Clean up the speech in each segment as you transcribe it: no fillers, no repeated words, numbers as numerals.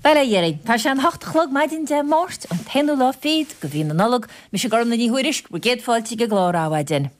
Bail ó Dhia oraibh. Tá sé an hocht a chlog maidin Dé Máirt, an t-aonú lá fichead de mhí na Nollag. Mise Gormlaith Ní Thuairisg, bhur gcéad fáilte ag an gclár Adhmhaidin.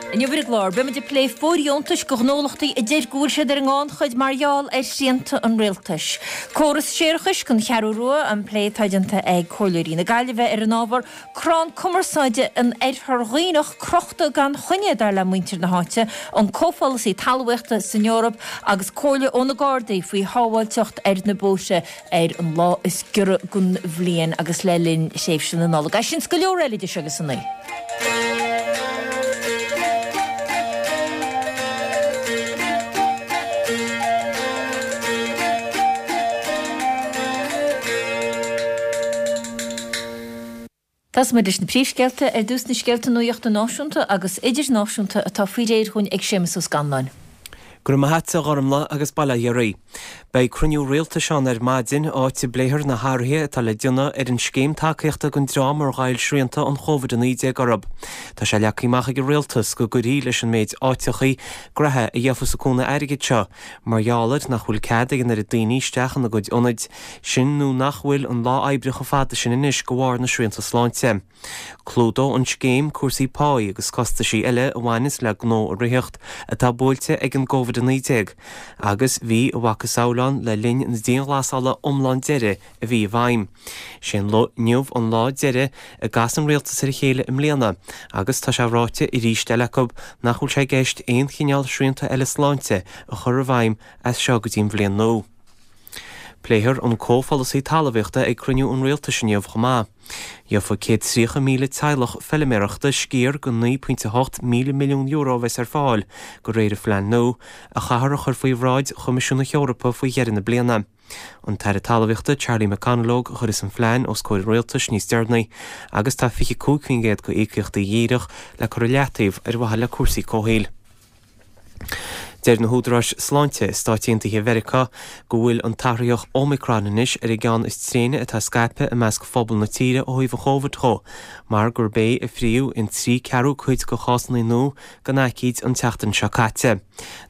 Inniu ar an gclár, beimid ag plé fóirdheontais do ghnólachtaí a deir go bhfuil siad ar an ngannchuid mar gheall ar shrianta an rialtais. Córas séarachais don Cheathrú Rua, an plé atá déanta ag Comhairleoirí na Gaillimhe ar an ábhar. Crann cumarsáide in Oirthear Dhuibhneach crochta gan choinne, dar le muintir na háite, an comhpholasaí talmhaíochta san Eoraip agus comhairle ó na Gardaí faoi shábháilteacht ar na bóithre ar an lá is giorra den bhliain agus le linn thréimhse na Nollag. É sin 's go leor eile idir seo agus a naoi. Tosóidh muid leis na príomhscéalta. Ar dtús na scéalta nuachta náisiúnta agus idirnáisiúnta atá faoi réir dhúinn ag Séamus Ó Scanláin. Go raibh maith a't a Ghormlaith agus bail ó Dhia oraibh. Beidh cruinniú rialtais ann ar maidin, áit a bpléifear na hathruithe atá le déanamh ar an scéim tacaíochta don dream ar ghoill srianta an Chóvid-19 orthu. Tá sé leagtha amach ag an rialtas go gcuirfí leis an méid áiteachaí graithe a gheofas an cúnamh airgid seo, mar gheall ar nach bhfuil cead ag an oiread daoine isteach ina gcuid ionaid, sin nó nach bhfuil an lá oibre chomh fada sin anois de bharr na srianta sláinte. Clúdóidh an scéim cúrsaí páí agus costaisí eile a bhaineas le gnó a ritheacht atá buailte ag an gCóvid-19 agus bhí a mhacasamhail ann le linn na dianghlasála iomlán deiridh a bhí i bhfeidhm. Sé an inniu an lá deiridh a gcasfaidh an rialtas ar a chéile i mbliana agus tá sé ráite arís eile acu nach bhfuil sé i gceist aon chineál srianta eile sláinte a chur i bhfeidhm as seo go dtí an bhliain nua. Pléifear an comhpholasaí talmhaíochta ag cruinniú an rialtais inniu chomh maith. Gheofaidh 130,000 teaghlach feiliméarachta sciar de €9.8 míle milliún a bheas ar fáil, de réir an phlean nua, a chaithfear a chur faoi bhráid Choimisiún na hEorpa faoi dheireadh na bliana. An tAire Talmhaíochta Charlie McConalogue a chuirfeas an phlean os comhair an rialtais níos deireanaí agus tá 25% de íocaíochtaí dhíreach le cur i leataobh ar mhaithe le cúrsaí comhshaoil. Deir na húdaráis sláinte i Stáit Aontaithe Mheiriceá go bhfuil an t-athraitheach Omicron anois ar an gceann is tréine atá scaipthe i measc phobal na tíre ó thaobh an Chóivid dho, mar gurb é a fríodh in 3 ceathrú cuid de chásanna nua den aicíd an tseachtain seo caite.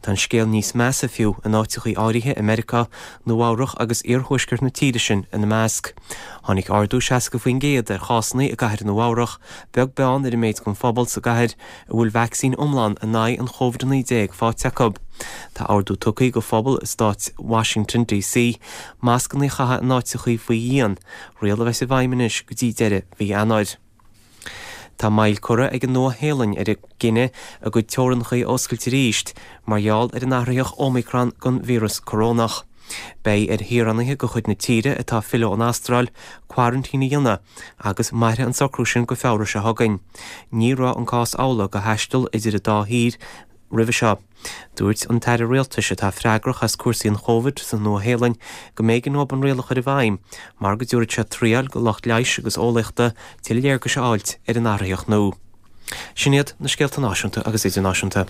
Tá an scéal níos measa fiú in áiteachaí áirithe i Meiriceá, Nua-Eabhrac agus iarthuaisceart na tíre sin ina measc. Tháinig ardú 60% ar chásanna i gcathair Nua-Eabhrac, beag beann ar an méid den phobal sa gcathair a bhfuil vacsaín iomlán in aghaidh an Chóvid-19 faighte acu. Tá ordú tugtha do phobal i stát Washington DC mascanna a chaitheamh in áiteachaí faoi dhíon, riail a bheas i bhfeidhm anois go dtí deireadh mhí Eanáir. Tá moill curtha ag an Nua-Shéalainn ar a gcinneadh a gcuid teorainneacha a oscailt arís mar gheall ar an athraitheach Omicron den víreas corónach. Beidh ar shaoránaithe de chuid na tíre atá ag filleadh ón Astráil coraintín a dhéanamh agus mairfidh an socrú sin go Feabhra seo chugainn. Ní raibh an cás amhlaidh do thaisteal idir an dá thír roimhe seo. Dúirt an tAire Rialtais atá freagrach as cúrsaí an Chóivid sa Nua-Shéalainn go mb'éigean dóibh an riail a chur i bhfeidhm mar go dtabharfadh sé triail do lucht leighis agus eolaíochta tuilleadh léargais a fháilt ar an athraitheach nua. Sin iad na scéalta náisiúnta agus idirnáisiúnta.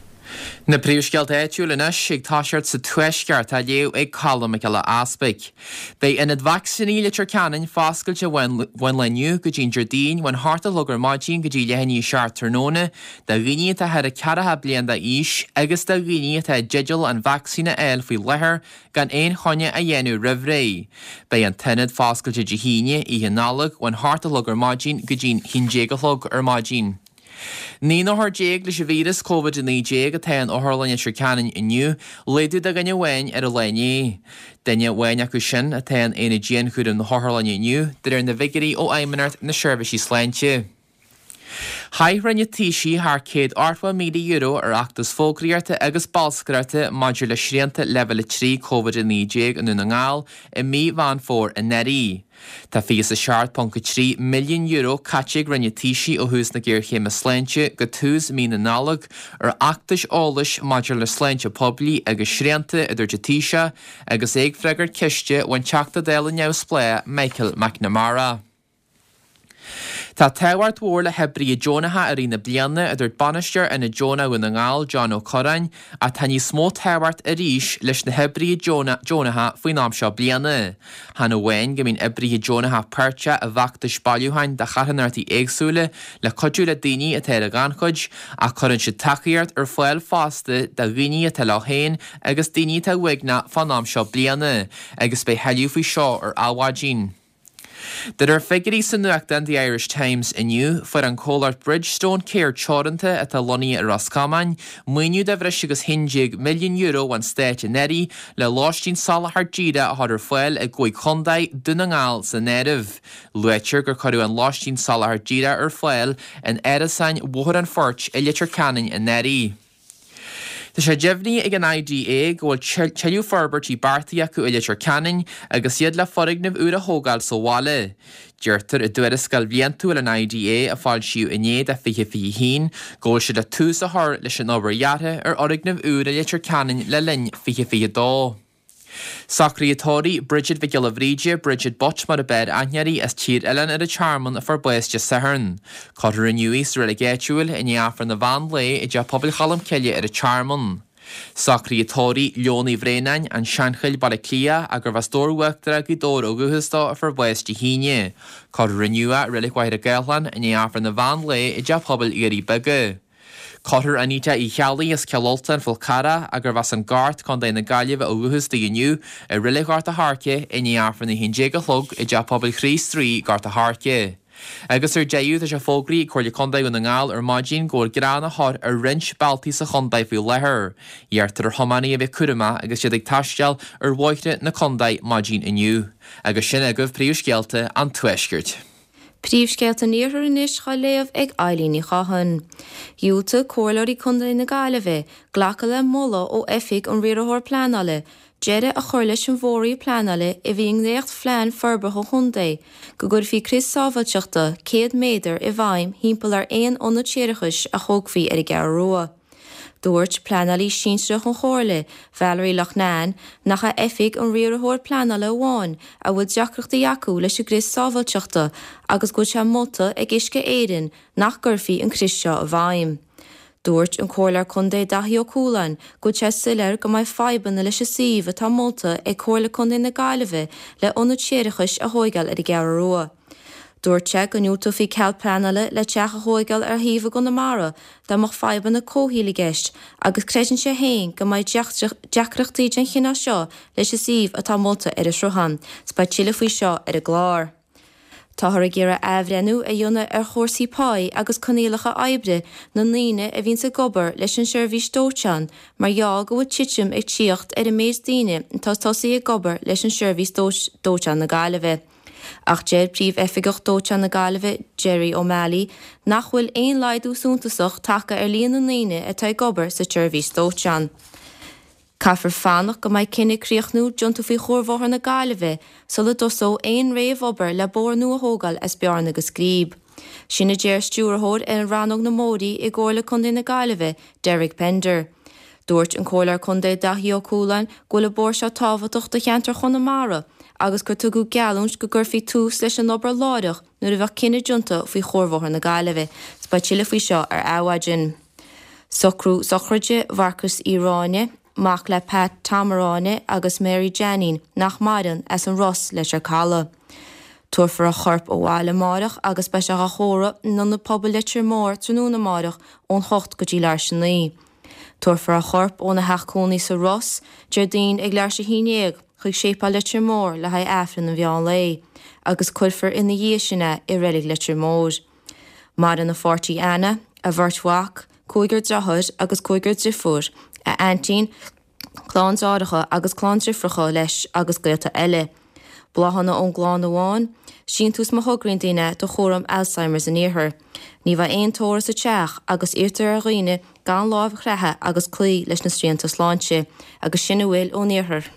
Na príomhscéalta áitiúil anois ag toiseacht sa Tuaisceart á léamh ag Colm Mac Giolla Easpaig. Beidh Ionad Vacsaíní Leitir Ceanainn foscailte ón lae inniu go dtí an Déardaoin ón hocht a chlog ar maidin go dtí leath i ndiaidh a 7 tráthnóna do dhaoine atá thar 40 bliain d'aois agus do dhaoine atá i dteideal an vacsaín a fháil faoi láthair gan aon choinne a dhéanamh roimh ré. Beidh an t-ionad foscailte Dé hAoine, Oíche Nollag, ón hocht a chlog ar maidin go dtí'n haon déag a chlog ar maidin. 19 n-othar leis an víreas Covid-19 atá in Otharlann Leitir Ceanainn inniu, laghdú de dhuine amháin ar an lá inné. Duine amháin acu sin atá in aonad dianchúraim na hotharlainne inniu, de réir na bhfigiúirí ó Fheidhmeannacht na Seirbhísí Sláinte. Chaith Roinn an Taoisigh thar €180,000 ar fheachtas fógraíochta agus bolscaireachta maidir le srianta Leibhéal 3 Covid-19 i nDún na nGall i mí Mheán Fómhair anuraidh. Tá €27.3 milliún caite ag Roinn an Taoisigh ó thús na géarchéime sláinte go tús mí na Nollag ar fheachtais eolais maidir le sláinte poiblí agus srianta, a dúirt an Taoiseach agus é ag freagairt ceiste ón Teachta Dála neamhspleách Michael McNamara. Tá tábhacht mhór le hoibrithe deonacha i rith na bliana, a dúirt Bainisteoir Ionad Deonach Dhún na nGall, John Ó Curráin, ach tá níos mó tábhacht arís leis na hoibrithe deonacha faoin am seo bliana. Chan amháin go mbíonn oibrithe deonacha páirteach i bhfeachtais bailiúcháin do charthanachtaí éagsúla le cuidiú le daoine atá ar an ghannchuid, ach cuireann siad tacaíocht ar fáil fosta do dhaoine atá leo féin agus daoine atá uaigneach fán am seo bliana, agus beidh thuilleadh faoi seo ar Adhmhaidin. De réir figiúirí sa nuachtán The Irish Times inniu, fuair an comhlacht Bridgestone Care Teoranta, atá lonnaithe i Ros Comáin, maoiniú de bhreis agus €11 milliún ón Stát anuraidh le lóistín soláthar díreach a chur ar fáil i gcúig chontae, Dún na nGall san áireamh. Luaitear gur cuireadh an lóistín soláthar díreach ar fáil in árasáin Bhóthar an Phoirt i Leitir Ceanainn anuraidh. Tá sé deimhnithe ag an IDA go bhfuil tuilleadh forbairtí beartaithe acu i Leitir Ceanainn agus iad le foirgneamh úr a thógáil sa bhaile. Deirtear i dtuarascáil bhliantúil an IDA a foilsíodh inné do 2021 go bhfuil siad le tús a chur leis an obair dheartha ar fhoirgneamh úr i Leitir Ceanainn le linn 2022. Socruithe tórraimh Bridget Mhic Giolla Bhríde, Bridget Butt mar a b'fhearr aithne uirthi, as Tír Oileáin ar an Tearmann a fuair bás Dé Sathairn. Cuirfear inniu í sa reilig áitiúil i ndiaidh Aifreann an mheán lae i dTeach Pobail Cholm Cille ar an Tearmann. Socruithe tórraimh Leon Uí Bhraonáin, An Seanchill, Baile Átha Cliath, ach gurbh as Dobhar Uachtarach, Gaoth Dobhair ó dhúchas dó, a fuair bás Dé hAoine. Cuirfear inniu é i Reilig Mhachaire Gathlán i ndiaidh Aifreann an mheán lae i dTeach Pobail Dhoirí Beaga. Cuirfear Anita Uí Cheallaigh as Cill Ultain, Fál Carrach, ach gurbh as an Gort, Co. na Gaillimhe ó dhúchas di inniu, i Reilig Ghort a' Choirce i ndiaidh Aifreann a 11 a chlog i dTeach Pobail Chríost Rí, Gort a' Choirce. Agus ar deireadh, tá sé fógraithe ag Comhairle Contae Dhún na nGall ar maidin go bhfuil grean á chur ar roinnt bealtaí sa chontae faoi láthair. Iarrtar ar thiománaithe a bheith cúramach agus iad ag taisteal ar bhóithre na contae maidin inniu. Agus sin agaibh príomhscéalta an Tuaiscirt. Príomhscéalta an Iarthair anois á léamh ag Eilín Ní Chatháin. Dhiúltaigh Comhairleoirí Contae na Gaillimhe glacadh le moladh ó Oifig an Riarthóra Pleanála deireadh a chur leis an bhfóraoil pleanála a bhí i ndréacht-phlean forbartha an chontae go gcuirfí crios sábháilteachta 100 méadar i bhfeidhm thimpeall ar aon ionad séarachais a thógfaí ar an gCeathrú Rua. Dúirt pleanálaí sinsearach an Chomhairle, Valerie Loughnane, nach é Oifig an Riarthóir Pleanála amháin a bhfuil deacrachtaí acu leis an gcrios sábháilteachta agus go bhfuil sé molta ag Uisce Éireann nach gcuirfí an crios seo i bhfeidhm. Dúirt an Comhairleoir Contae Daithí Ó Cualáin go bhfuil sé soiléir go mbeidh fadhbanna leis an suíomh atá molta ag Comhairle Contae na Gaillimhe le ionad séarachais a thóigeáil ar an gCeathrú Rua. Dúirt sé go ndiúltófaí cead pleanála le teach a thóigeáil ar shuíomh i gConamara dá mbeadh fadhbanna comhshaoil i gceist agus creideann sé féin go mbeidh deacrachtaí den chineál seo leis an suíomh atá molta ar an Sruthán. 'S beidh tuilleadh faoi seo ar an gclár. Táthar ag iarraidh athbhreithniú a dhéanamh ar chúrsaí páí agus coinníollacha oibre na ndaoine a bhíonns ag obair leis an seirbhís dóiteáin mar gheall go bhfuil titim ag tíocht ar an méid daoine atá tosaithe ag obair leis an seirbhís dóiteáin na Gaillimhe. Ach deir Príomh-Oifigeach Dóiteáin na Gaillimhe, Gerry O'Malley, nach bhfuil aon laghdú suntasach tagtha ar líon na ndaoine atá ag obair sa tseirbhís dóiteáin. Caithfear fanacht go mbeidh cinneadh críochnúil déanta faoi Chuarbhóthar na Gaillimhe sula dtosóidh aon réamh-obair le bóthar nua a thógáil as Bearna go Scríb. Sin a deir Stiúrthóir ar Rannóg na mBóithrí i gComhairle Contae na Gaillimhe, Derek Pender. Dúirt an Comhairleoir Contae Daithí Ó Cualáin go bhfuil an bóthar seo tábhachtach do cheantar Chonamara agus gur tugadh geallúint go gcuirfí tús leis an obair láithreach nuair a bheadh cinneadh déanta faoi Chuarbhóthar na Gaillimhe. 'S beidh tuilleadh faoi seo ar Adhmhaidin. Socrú sochraide Mharcas Uí Ráinne, mac le Pat Tom Ráinne agus Mary Jeainín, nach maireann, as an Ros, Leitir Caladh. Tabharfar a chorp abhaile amáireach agus beidh sé dhá thórramh in Ionad Pobail Leitir Móir tráthnóna amáireach ón hocht go dtí leathuair tar éis a naoi. Tabharfar a chorp óna theach cónaí sa Ros, Déardaoin ag leathuair tar éis a haon dhéag, chuig Séipéal Leitir Móir le haghaidh Aifreann an mheán lae, agus cuirfear ina dhiaidh sin é i Reilig Leitir Móir. Maireann a pháirtí Anna, a bheirt mhac, cúigear deartháir agus cúigear driofúr, a aintín, clann deartháireacha agus clann driofracha leis agus gaolta eile. Bláthanna ón gclann amháin, síntiús má thograíonn daoine do chúram Alzheimer's an Iarthair. Ní bheidh aon tórramh sa teach agus iarrtar ar dhaoine gan lámh a chroitheadh agus cloí leis na srianta sláinte. Agus sin a bhfuil ón Iarthar.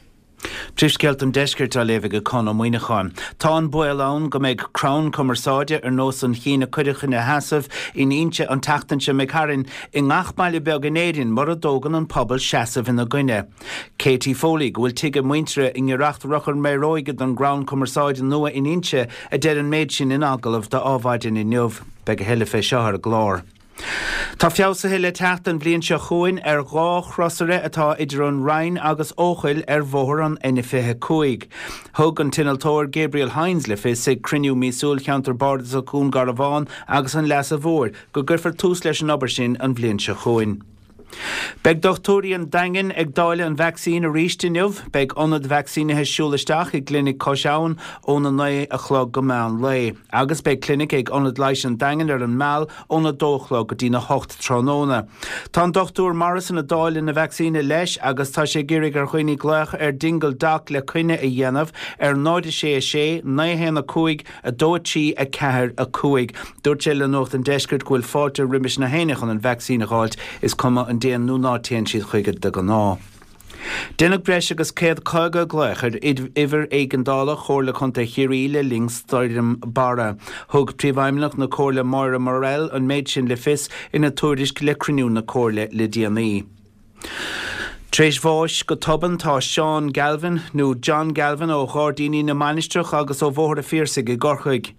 Príomhscéalta an Deiscirt á léamh ag Conn Ó Muíneacháin. Tá an baol ann go mbeidh crann cumarsáide ar nós an chinn a cuireadh ina sheasamh in Inse an tseachtain seo imigh tharainn i ngach baile beag in Éirinn mura dtógann an pobal seasamh ina gcoinne. Katie Foley, go bhfuil tigh a muintire i ngiorracht Rubhchar Méaróige don gcrann cumarsáide nua in Inse a deir an méid sin in agallamh do Adhmhaidin inniu. Beidh a thuilleadh fé seo ar an gclár. Tá feabhsuithe le teacht an bhliain seo chugainn ar 2 chrosaire atá idir an Rinn agus Eochaill ar bhóthar an N25. Thug an t-innealtóir Gabriel Hynes le fios ag cruinniú míosúil Cheantar Bardasach Dhún Garbhán agus an Leasa Mhóir go gcuirfear tús leis an obair sin an bhliain seo chugainn. Beidh dochtúirí an Daingin ag dáileadh an vacsaín arís inniu. Beidh ionad vacsaínithe siúl isteach i gClinic Cois Abhann óna 9 a chlog go meán lae. Agus beidh clinic ag Ionad Leighis an Daingin ar an Meal óna 2 a chlog go dtína 8 tráthnóna. Tá an Dr Morrison ag dáileadh na vacsaíne leis agus tá sé ag iarraidh ar dhaoine glaoch ar Dingle Doc le coinne a dhéanamh ar 0 6 6 9 1 5 2 3 4 5. Dúirt sé le Nuacht an Deiscirt go bhfuil fáilte roimis na héinne chun an vacsaín a dh'fháilt, is cuma an dtéann nó ná téann siad chuige de ghnáth. Deineadh breis agus 150 glaoch ar uimhir éigeandála Chomhairle Contae Chiarraí le linn Stoirm Barra. Thug Príomhfheidhmeannach na Comhairle Máire Morrell an méid sin le fios ina tuairisc le cruinniú na Comhairle le déanaí. Tar éis bháis go tobann tá Seán Galvin, nó John Galvin ó Ghairdíní na Mainistreach agus ó Bhóthar a' Phiarsaigh i gCorcaigh.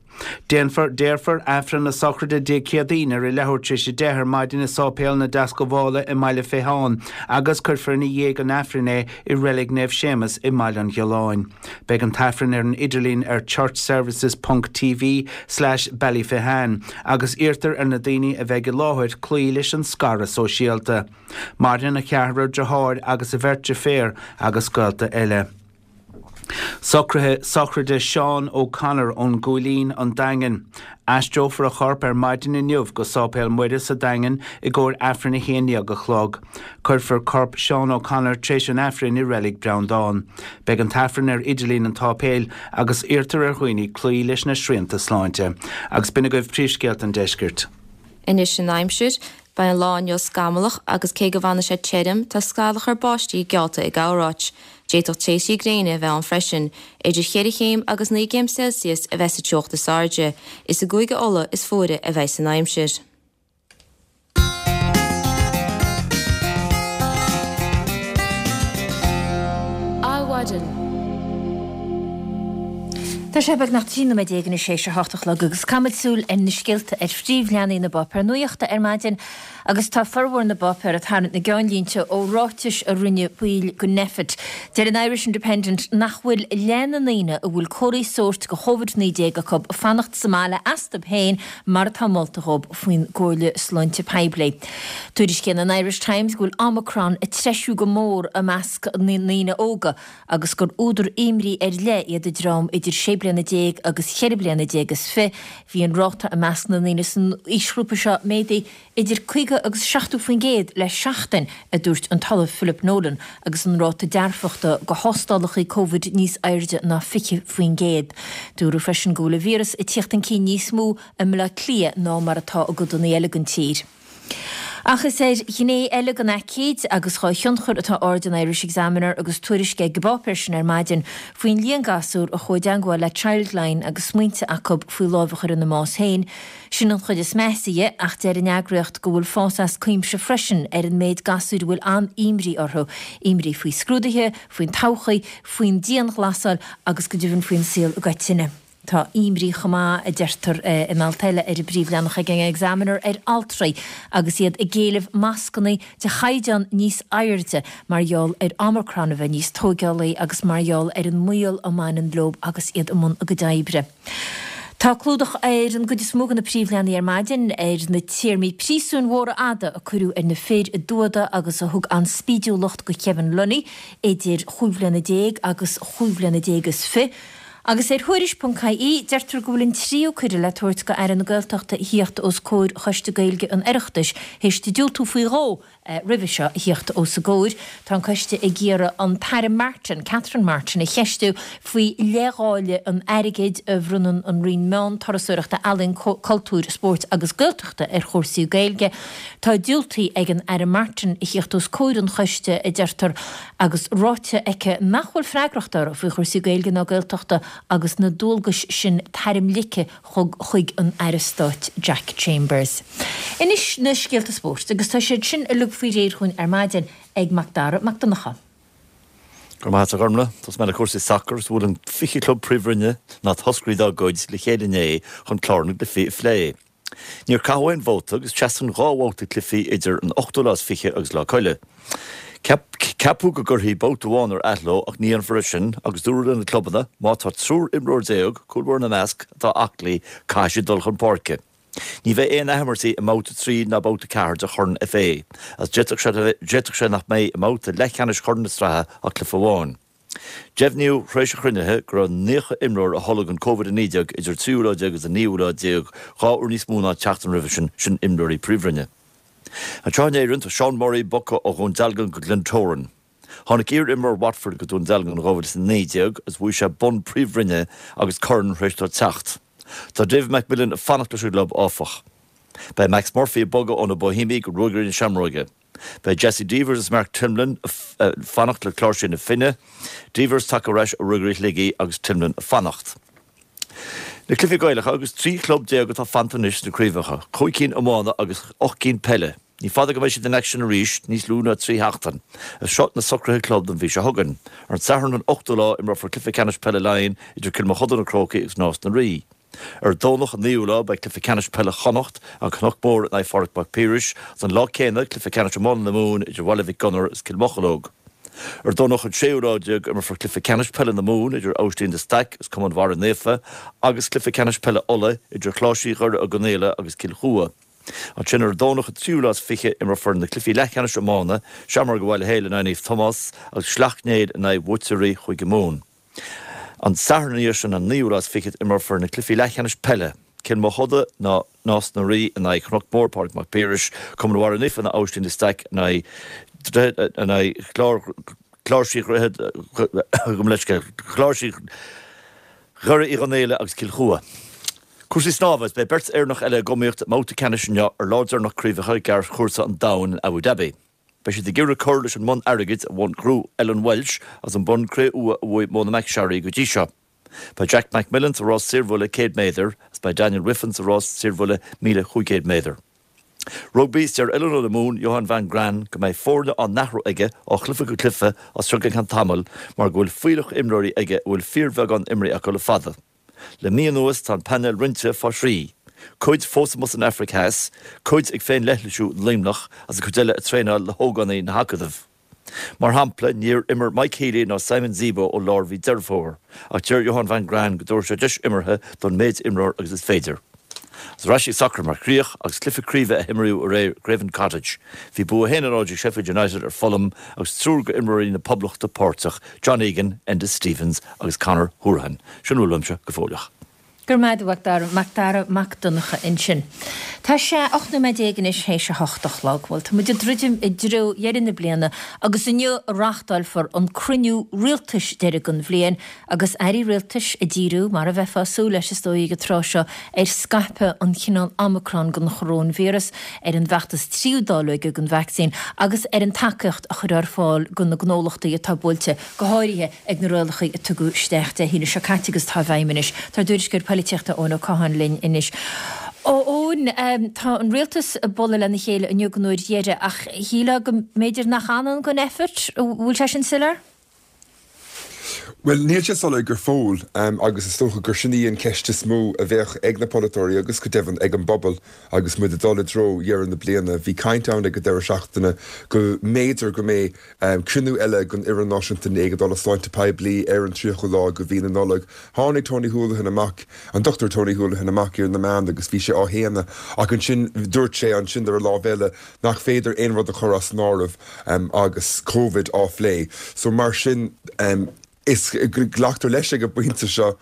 Déanfar, déarfar, Aifreann na sochraide Dé Céadaoin ar a leathuair tar éis 10 ar maidin i Sáipéal na Deascabhála i mBaile Féitheáin agus cuirfear ina dhiaidh an Aifrinn é i Reilig Naomh Séamus i mBaile an Ghiolláin. Beidh an tAifreann ar an idirlíon ar churchservices ponc tv slash ballyphehane agus iarrtar ar na daoine a bheidh i láthair cloí leis an scaradh sóisialta. Maireann a cheathrar deartháir agus a bheirt deirféar agus gaolta eile. Socruithe sochraide Seán O'Connor ón gCúilín, An Daingean. Aistreofar a chorp ar maidin inniu go Sáipéal Muire sa Daingean i gcomhair Aifreann 11 a chlog. Cuirfear corp Seán O'Connor tréis an Aifrinn i Reilig Breandán. Beidh an tAifreann ar idirlíon an tsáipéil agus iarrtar ar dhaoine cloí leis na srianta sláinte. Agus b'in agaibh príomhscéalta an deiscirt. Anois an aimsir. Beidh an lá inniu scamallach agus cé go bhfanfaidh sé tirim, tá scamhachar báistí geallta i gcorráit. D'fhéadfadh tréimhsí gréine a bheith ann freisin. Idir cheithre chéim agus 9 gcéim Celsius a bheas sa teocht is airde. Is i gCúige Uladh is fuaire a bheidh san aimsir. Adhmhaidin. Tá sé beagnach 13 nóiméad anois théis a hocht a chlog agus caithfimid súil ar na scéalta ar phríomhleathanaigh na bpáipéar nuachta ar maidin agus tá formhór na bpáipéar ag tarraingt na gceannlínte ó ráitis a rinne baill de Nphet. Deir an Irish Independent nach bhfuil leath na ndaoine a bhfuil comharthaí sóirt de Chovid-19 acu ag fanacht sa mbaile astu féin mar atá molta dhóibh faoin gcomhairle sláinte poiblí. Tuairiscíonn an Irish Times go bhfuil Omicron ag treisiú go mór i measc na ndaoine óga agus gur údar imní ar leith iad an dream idir sé bliana déag agus cheithre bliana déag is fi. Bhí an ráta i measc na ndaoine san aoisghrúpa seo méadaithe idir 50 agus 70% le seachtain, a dúirt an tOllamh Philip Nolan, agus an ráta dearfachta do thástálacha Covid níos airde ná 20%. Dúradh freisin go bhfuil an víreas ag tíocht chun cinn níos mó i mBaile Átha Cliath ná mar atá i gcodanna eile den tír. Ach is ar ghné eile den aicíd agus dhá thionchar atá aird an Irish Examiner agus tuairisc ag an bpáipéar sin ar maidin faoin líon gasúr a chuaigh i dteangmháil le Childline agus smaointe acu faoi lámh a chur ina mbás féin. Sin an chuid is measa dhe ach deir an eagraíocht go bhfuil fás as cuimse freisin ar an méid gasúir a bhfuil an-imní orthu, imní faoi scrúduithe, faoin todhchaí, faoin dianghlasáil agus go deimhin faoin saol i gcoitinne. Tá imní chomh maith, a deirtear in alt eile ar an bpríomhleathanach ag an Examiner, ar altraí agus iad ag éileamh mascanna de chaighdeán níos airde mar gheall ar Omicron a bheith níos tóigeálaí agus mar gheall ar an mbaol a mbaineann leo agus iad i mbun a gcuid oibre. Tá clúdach ar an gcuid is mó de na príomhleathanaigh ar maidin ar na téarmaí príosúin mhóra fhada a cuireadh ar na fir i dTuada agus a thug an-spídiúlacht do Kevin Lunny idir chúig bhliana déag agus chúig bhliana déag is fi. Agus ar Thuairisc ponc ie, deirtear go bhfuil an tríú cuireadh le tabhairt go Aire na Gaeltachta a thíocht os comhair Choiste Gaeilge an Oireachtais théis di diúltú faoi dhó roimhe seo a thíocht os a gcomhair. Tá an coiste ag iarraidh an tAire Martin, Catherine Martin, a cheistiú faoi leithdháileadh an airgid a bhronnann an Roinn Meán, Turasóireachta, Ealaíon, Cultúir, Spóirt agus Gaeltachta ar chúrsaí Gaeilge. Tá diúltaithe ag an Aire Martin a thíocht os comhair an choiste, a deirtear, agus ráite aici nach bhfuil freagracht uirthi faoi chúrsaí Gaeilge ná Gaeltachta agus na dualgais sin tarmligthe chuig an Aire Stáit Jack Chambers. Anois na scéalta spóirt agus tá siad sin uilig faoi réir chugainn ar maidin ag Mac Dara Mac Donncha. Go raibh maith agat a Ghormlaith. Tosóidh mé le cúrsaí sacair agus bhuail an 20 club Príomhroinne, ná toscairí dá gcuid, le chéile inné chun clár na gcluichí a phlé. Níor caitheadh aon vóta agus seasann 2 bhabhta cluichí idir an ochtú lá is 20 agus Lá Coille. Ceapadh go gcuirfí babhta amháin ar athló ach ní dhéanfar é sin agus dúradh le na clubanna má tá triúr imreoir déag, cúl báire ina measc, atá aclaí, caithfidh siad dul chun páirce. Ní bheidh aon athimirtí i mbabhta 3 ná babhta 4 de Chorn FA agus d'fhéadfadh sé nach mbeidh i mbabhta leathcheannais Chorn na Sraithe ach cluiche amháin. Deimhníodh tar éis an chruinnithe go raibh 90 imreoir a tholg an Covid-19 idir an tríú lá déag agus an naoú lá déag, 2 uair níos mó ná an tseachtain roimhe sin, sin imreoirí Príomhroinne. Anseo in Éirinn, tá Sean Murray bogtha ó Dhún Dealgan go Glentoran. Tháinig iar-imreoir Watford go Dún Dealgan in 2019 agus bhuaigh sé bonn Príomhroinne agus corn tar éis dó teacht. Tá David McMillan ag fanacht leis an gclub, áfach. Beidh Max Murphy ag bogadh ó na Boihéamaigh go Ruagairí na Seamróige. Beidh Jesse Devers is Mark Timlin ag fanacht le Cláirsigh na Finne, Devers tagtha ar ais ó Ruagairí Shligigh agus Timlin ag fanacht. Na cluichí Gaelacha agus 13 chlub atá fanta anois sna craobhacha, 5 cinn iomána agus 8 gcinn peile. Ní fada go mbeidh siad in aicsean arís, níos lú ná 3 sheachtain. Is seo na socruithe club don mhí seo chugainn. Ar an Satharn an 8ú lá imreofar cluiche ceannais peile Laighean idir Cill Mochuda na Crócaigh agus Nás na Rí. Ar an Domhnach an 9ú lá beidh cluiche ceannais peile Chonnacht, An Cnoc Mór in aghaidh Phádraig Mac Piarais, agus an lá céanna cluiche ceannais iomána na Mumhan idir Bhaile Mhic Gonair agus Cill Mocheallóg. Ar an Domhnach an séú lá déag imreofar cluiche ceannais peile na Mumhan idir Aibhistín de Staic agus Cumann Bharra Naofa agus cluiche ceannais peile Uladh idir Chláirsigh Dhoire Ó gConaola agus Cill Chua. Ansin ar an Domhnach an tríú lá is 20 imreofar na cluichí leathcheannais iomána, Seamróga Bhaile Héil in aghaidh Naomh Tomás agus Sleacht Néill in aghaidh bhuaiteoirí Chúige Mumhan. An Satharn ina dhiaidh sin, an naoú lá is fichead, imreofar na cluichí leathcheannais peile, Cill Mochuda ná Nás na Rí in aghaidh Chnoc Mór, Pádraig Mac Piarais, Cumann Bharra Naofa ná Aibhistín de Staic in aghaidh in aghaidh Chlár Chláirsigh Dhroichead gabh mo leithscéal, Chláirsigh Dhoire Uí Chonghaile agus Cill Chua. Cúrsaí snámha, Is beidh beirt Éireannach eile ag iomaíocht i mbabhta ceannais inniu ar lá deireanach craobhacha gearrchúrsa an domhain in Abu Dhabi. Beidh siad ag iarraidh cur leis an mbonn airgid a ghnóthaigh Ellen Walshe agus an bonn cré-umha a bhuaigh Mona McSharry go dtí seo. Beidh Jack McMillan sa rás saorbhuille 100 méadar agus beidh Daniel Wiffen sa rás saorbhuille 1,500 méadar. Rugbaí, Is deir oiliúnóir na Mumhan, Johann van Graan, go mbeidh foirne á n-athrú aige ó chluiche go cluiche as seo go ceann tamaill mar go bhfuil fuílleach imreoirí aige a bhfuil fíorbheagán imrithe acu le fada. Le mí anuas tá an painéal roinnte fá thrí, cuid fós amuigh san Afraic Theas, cuid ag féin-leithlisiú i Luimneach agus an chuid eile ag traenáil le hógánaigh na hAcadaimh. Mar shampla, níor imir Mike Healy ná Simon Zebo ó lár mhí Deireadh Fómhair, ach deir Johann van Graan go dtabharfaidh sé deis imeartha don méid imreoir agus is féidir. Agus ar ais ag sacar mar chríoch, agus cluiche craoibhe a himríodh aréir i Craven Cottage, bhí bua 1-0 ag Sheffield United ar Fulham agus triúr go imreoirí na Poblachta páirteach, John Egan, Enda Stevens agus Conor Hourihane. Sin a bhfuil uaimse go fóilleach. Go raibh maith agat, a Mhac Dara, Mac Dara Mac Donncha ansin. Tá sé 18 nóiméad anois théis a hocht a chlog. Bhuel, tá muid ag druidim i dtreo dheireadh na bliana agus inniu a reáchtálfar an cruinniú rialtais deiridh den bhliain agus airí rialtais ag díriú, mar a bheifeá ag súil leis is dóigh ag an tráth seo, ar scaipeadh an chineál Omicron den choróinvíreas, ar an bhfeachtas tríú dáileoige den vacsaín agus ar an tacaíocht a chur ar fáil do na gnólachtaí atá buailte, go háirithe ag na rialacha a tugadh isteach Dé hAoine seo caite agus atá i bhfeidhm anois. Tá ár dtuairisceoir poilitíochta Eoin Ó Catháin linn anois. A Eoin, tá an rialtas ag bualadh lena chéile inniu don uair dheiridh ach shílfeá go mb'fhéidir nach ann don effort, an bhfuil sé sin soiléir? Bhuel, níl sé soiléir go fóill agus is dócha gur sin í an cheist is mó a bheadh ag na polaiteoirí agus go deimhin ag an bpobal agus muid ag dul i dtreo dheireadh na bliana. Bhí caint ann ag an deireadh seachtaine go mb'fhéidir go mbeidh cruinniú eile den Fhoireann Náisiúnta Éigeandála Sláinte Poiblí ar an 30ú lá de mhí na Nollag. Tháinig Tony Holohan amach, an Dr Tony Holohan amach ar na meáin agus bhí sé á shéanadh ach ansin dúirt sé ansin ar an lámh eile nach féidir aon rud a chur as an áireamh agus Covid á phlé. So mar sin. Is glactar leis ag an bpointe seo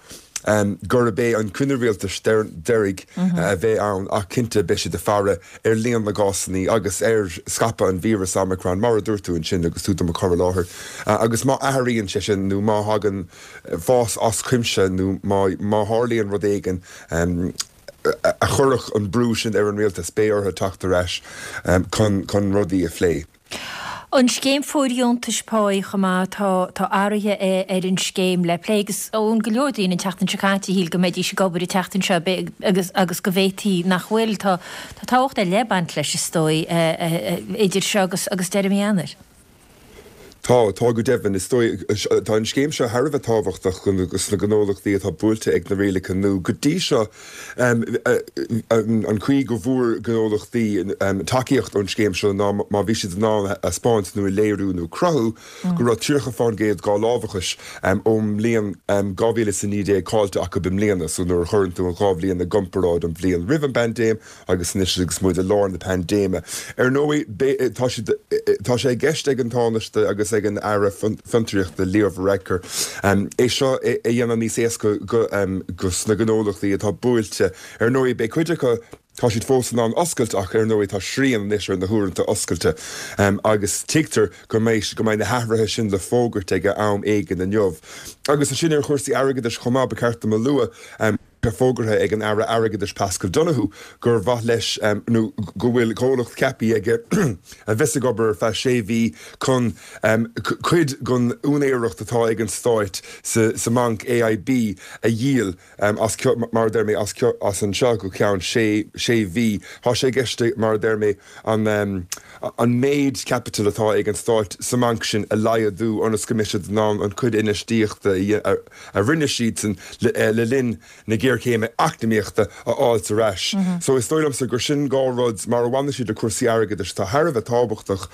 gurb é an cruinniú rialtais deiridh a bheidh ann ach cinnte beidh siad ag faire ar líon na gcásanna agus ar scaipeadh an víreas Omicron, mar a dúirt tú ansin agus tú do mo chur i láthair. Agus má athraíonn sé sin nó má thagann fás as cuimse nó má tharlaíonn rud éigin a chuirfeadh an brú sin ar an rialtas, beidh orthu teacht ar ais chun rudaí a phlé. An scéim fóirdheontais páí chomh maith, tá tá athruithe ar an scéim le plé agus Eoin go leor daoine an tseachtain seo caite a shíl go mbeidís ag obair an tseachtain seo agus agus go bhféadfaí nach bhfuil. Tá tá tábhacht ar leith ag baint leis is dóigh idir seo agus agus deireadh mí Eanáir. Tá, tá go deimhin. Is dóigh, tá an scéim seo thar a bheith tábhachtach do na gnólachtaí atá buailte ag na rialacha nua. Go dtí seo, an chaoi go bhfuair gnólachtaí tacaíocht ón scéim seo ná má bhí siad in ann a thaispeáint nó a léiriú nó cruthú go raibh 30% dhá lámhachais ón mbliain 2019 caillte acu i mbliana. So nuair a chuireann tú an dhá bhliain i gcomparáid, an bhliain roimh an bpaindéim agus anois agus muid i lár na paindéime. Ar ndóigh, tá siad, tá sé i gceist ag an Tánaiste agus ag an Aire Fiontraíochta, Leo Varadkar, é seo a dhéanamh níos éasca do na gnólachtaí atá buailte. Ar ndóigh, beidh cuid acu, tá siad fós in ann oscailt ach ar ndóigh tá srian anois ar na huaireanta oscailte agus tuigtear go mbeidh, go mbeidh na hathruithe sin le fógairt ag am éigin inniu. Agus ansin ar chúrsaí airgeadais chomh maith, ba cheart dom a lua, Tá fógartha ag an Aire Airgeadais Paschal Donohoe gur mhaith leis nó go bhfuil comhlacht ceaptha aige a bheas ag obair ar feadh sé mhí chun cuid den úinéireacht atá ag an Stáit sa mbanc AIB a dhíol as, mar a deir mé, as anseo go ceann sé mhí. Tá sé i gceist, mar a deir mé, an méid caipitil atá ag an Stáit sa mbanc sin a laghdú ionas go mbeidh siad in ann an chuid infheistíochta a a rinne siadsan le linn na géarchéime eacnamaíochta a fháilt ar ais. So is dóigh liomsa gur sin dhá rud, mar a bhaineann siad le cúrsaí airgeadais, atá thar a bheith tábhachtach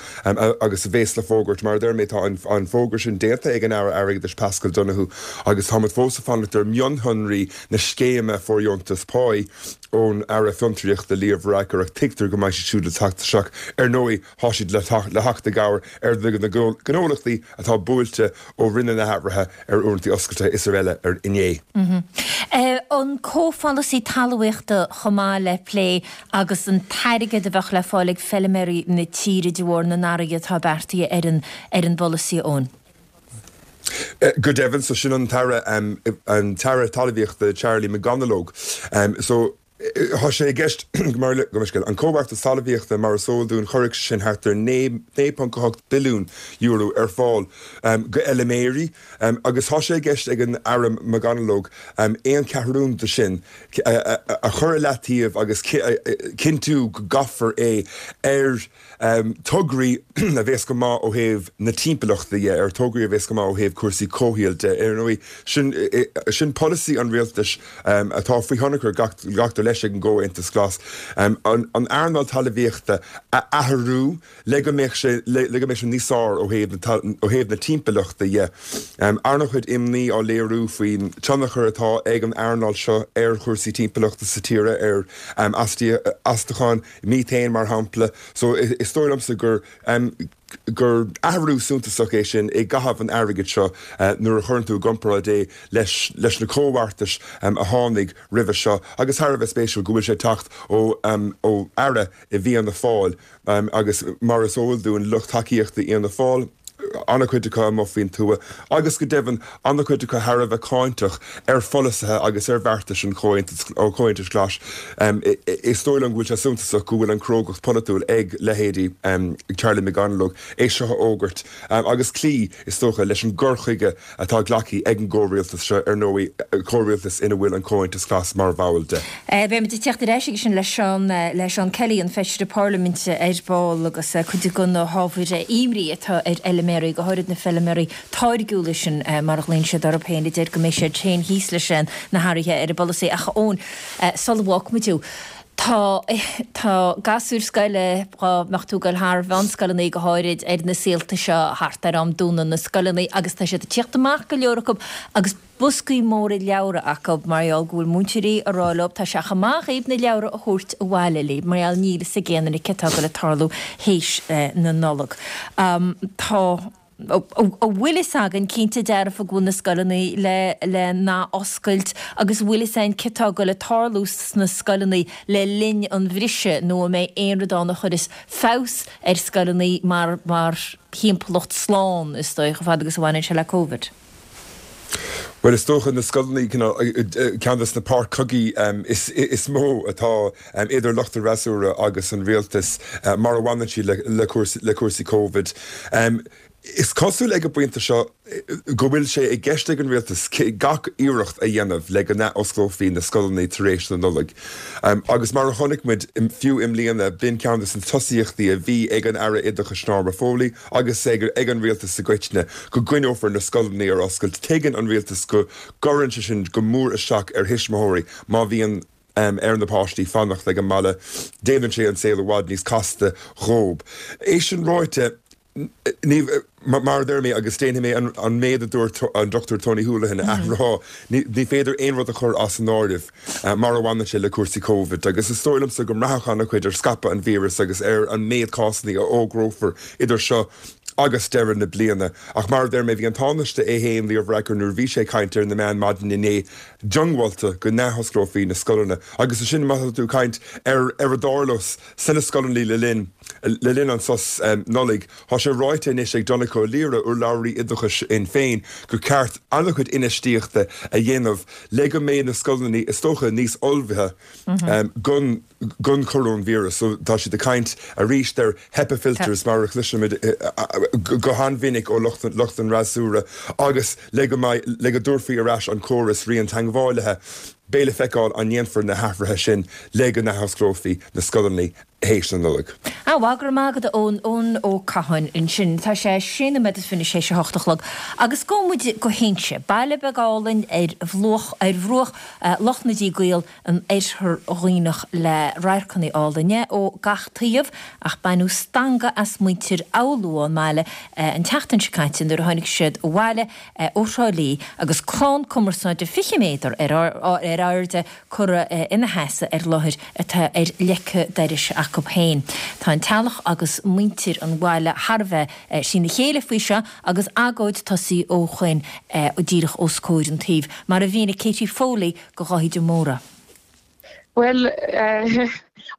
agus a bhéas le fógairt. Mar a deir mé, tá an fógra sin déanta ag an Aire Airgeadais Paschal Donohoe agus táimid fós ag fanacht ar mhionshonraí na scéime fóirdheontas páí ón Aire Fiontraíochta Leo Varadkar ach tuigtear go mbeidh siad siúd le teacht isteach. Ar ndóigh, Tá siad le theacht i gcabhair ar na gnólachtaí atá buailte ó rinneadh na hathruithe ar uaireanta oscailte is araile inné. An comhpholasaí talmhaíochta chomh maith le plé agus an t-airgead a bheadh le fáil ag feilméaraí na tíre de bharr na n-athruithe atá beartaithe ar an ar an bpolasaí, Eoin. Go deimhin, so sin an tAire an tAire Talmhaíochta Charlie McConalogue. So. Tá sé i gceist, mar an Comhbheartas Talmhaíochta, mar is eol dúinn, chuirfeadh sé sin thart ar €9.8 billiún ar fáil go fheilméaraí agus tá sé i gceist ag an Aire McConalogue aon cheathrún de sin a chur i leataobh agus cinntiú go gcaithfear é ar tograí a bhéas go maith ó thaobh na timpeallachta dhe, ar tograí a bhéas go maith ó thaobh cúrsaí comhshaoil de. Ar ndóigh, sin, sin polasaí an rialtais atá faoi thionchar, glactar leis, ag an gComhaontas Glas, an earnáil talmhaíochta a athrú le go mbeadh sé, le go mbeadh sé níos fearr ó thaobh na, ó thaobh na timpeallachta dhe. An-chuid imní á léiriú faoin tionchar atá ag an earnáil seo ar chúrsaí timpeallachta sa tír, ar astacháin, methane mar shampla. So is dóigh liomsa gur gur athrú suntasach é sin i gcaitheamh an airgid seo nuair a chuireann tú i gcomparáid é leis leis na comhbheartais a tháinig roimhe seo agus thar a bheith spéisiúil go bhfuil sé ag teacht ó ó Aire i bhFianna Fáil agus mar is eol dúinn lucht tacaíochta Fhianna Fáil an-chuid acu amuigh faoin tuath agus go deimhin an-chuid acu thar a bheith cáinteach ar pholasaithe agus ar bheartais an Chomhaontais Ghlais. Is dóigh liom go bhfuil sé suntasach go bhfuil an chrógacht pholaitiúil ag leithéidí Charlie McConalogue é seo a fhógairt agus cloí, is dócha, leis an gcur chuige atá glactha ag an gcomhrialtas seo, ar ndóigh, comhrialtas ina bhfuil an Comhaontas Glas mar bhall de. Beimid ag teacht ar ais aige sin le Seán, le Seán Kelly, an Feisire Parlaiminte ar ball agus cuid de na hábhair imní atá ar fheilméaraí, go háirid na feilméaraí táirgiúla sin mar a ghlaonn siad orthu féin, a deir go mbeidh siad féin thíos leis na hathruithe ar an bpolasaí. Ach a Eoin, sula bhfágfaimid thú, tá, tá gasúir scoile, dhá mbeadh tú ag goil thar mheánscoileanna go háirid ar na saolta seo thart ar am dúnadh na scoileanna agus tá siad ag tíocht amach go leor acu agus boscaí móra leabhra acu mar gheall go bhfuil múinteoirí ag rá leo tá sé chomh maith dhaoibh na leabhra a thabhairt abhaile libh mar gheall níl fhios ag aon duine cé atá ag goil ag tarlú théis na Nollag. Tá. An bhfuil fhios againn cinnte dearfa go bhfuil na scoileanna le le n-athoscailt agus an bhfuil fhios againn céard atá ag goil ag tarlú sna scoileanna le linn an bhriseadh nó an mbeidh aon rud ann a chuirfeas feabhas ar scoileanna mar mar thimpeallacht slán is dóigh chomh fada agus a bhaineann sé le Covid? Bhuel, is dócha na scoileanna, ceann de na páirc chogaidh is mó atá idir lucht an fhreasúra agus an rialtas mar a bhaineann siad le cúrsaí Covid. Is cosúil ag an bpointe seo go bhfuil sé i gceist ag an rialtas gach iarracht a dhéanamh le go n-athosclófaí na scoileanna tar éis na Nollag. Agus mar a chonaic muid fiú i mbliana, b'in ceann de na tosaíochtaí a bhí ag an Aire Oideachais Norma Foley agus ag an rialtas i gcoitinne, go gcoinneofar na scoileanna ar oscailt. Tuigeann an rialtas go gcuireann sé sin go mór isteach ar thuismitheoirí má bhíonn ar na páistí fanacht ag an mbaile. Déanann sé an saol i bhfad níos casta dhóib. É sin ráite, ní, mar a deir mé, agus déanfaidh mé an méid a dúirt an Dr Tony Holohan a athrá, ní féidir aon rud a chur as an áireamh mar a bhaineann sé le cúrsaí Covid. Agus is dóigh liomsa go mbraithfeadh an-chuid ar scaipeadh an víreas agus ar an méid cásanna a fhógrófar idir seo agus deireadh na bliana. Ach mar a deir mé, bhí an Tánaiste é féin, Leo Varadkar, nuair a bhí sé ag caint ar na meáin maidin inné, diongbháilte go n-athosclófaí na scoileanna. Agus ansin má tá tú ag caint ar ar a dtarlós sna scoileanna le linn le linn an sos Nollaig, tá sé ráite anois ag Donncha Ó Laoghaire, urlabhraí oideachais Shinn Féin, gur ceart an-chuid infheistíochta a dhéanamh le go mbeidh na scoileanna is dócha níos ullmhaithe don don choróinvíreas. So tá siad ag caint arís ar HEPA filters mar a chloisimid go han-mhinic ó lucht lucht an fhreasúra agus le go mbeidh le go dtabharfaí ar ais an córas rian-teagmhálaithe. Beidh le feiceáil an ndéanfar na hathruithe sin le go n-athosclófaí na scoileanna théis na Nollag. Á, bhuel, go raibh maith agat a Eoin, Eoin Ó Catháin ansin. Tá sé sé nóiméad is fiche théis a hocht a chlog agus gabhfaidh muid go hInse, baile beag álainn ar bhruach ar bhruach Loch na dTrí gCaol an Oirthear Dhuibhneach le radharcanna álainne ó gach taobh ach baineadh stangadh as muintir Fhoghlú ón mbaile an tseachtain seo caite nuair a tháinig siad abhaile ó Thrá Lí agus crann cumarsáide 20 méadar ar airde curtha ina sheasamh ar láthair atá ar leic dorais acu féin. Tá an teaghlach agus muintir an bhaile thar a bheith trína chéile faoi seo agus agóid tosaithe ó shoin díreach os comhair an tsuímh, mar a mhínigh Katie Foley do Dháithí de Mórdha. Bhuel,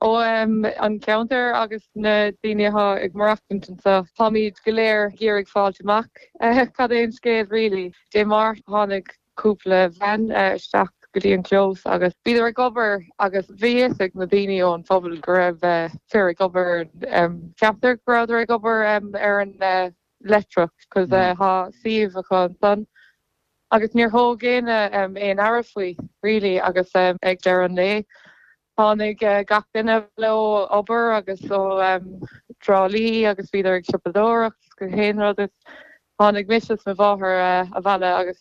ó an ceantar agus na daoine atá ag maireachtaint anseo, táimid go léir ag iarraidh fáilt amach cad é an scéal really. Dé Máirt tháinig cúpla veain isteach go dtí an clós agus bhíodar ag obair agus bhí fhios ag na daoine ón phobal go raibh fir ag obair, ceaptar go rabhadar ag obair ar an leictreach cos tá suíomh acu ansan. Agus níor thóg éinne aon aire faoi really agus ag deireadh an lae tháinig gach duine ó obair agus ó Trá Lí agus bhíodar ag siopadóireacht is gach aon rud agus tháinig mise is mo mháthair abhaile agus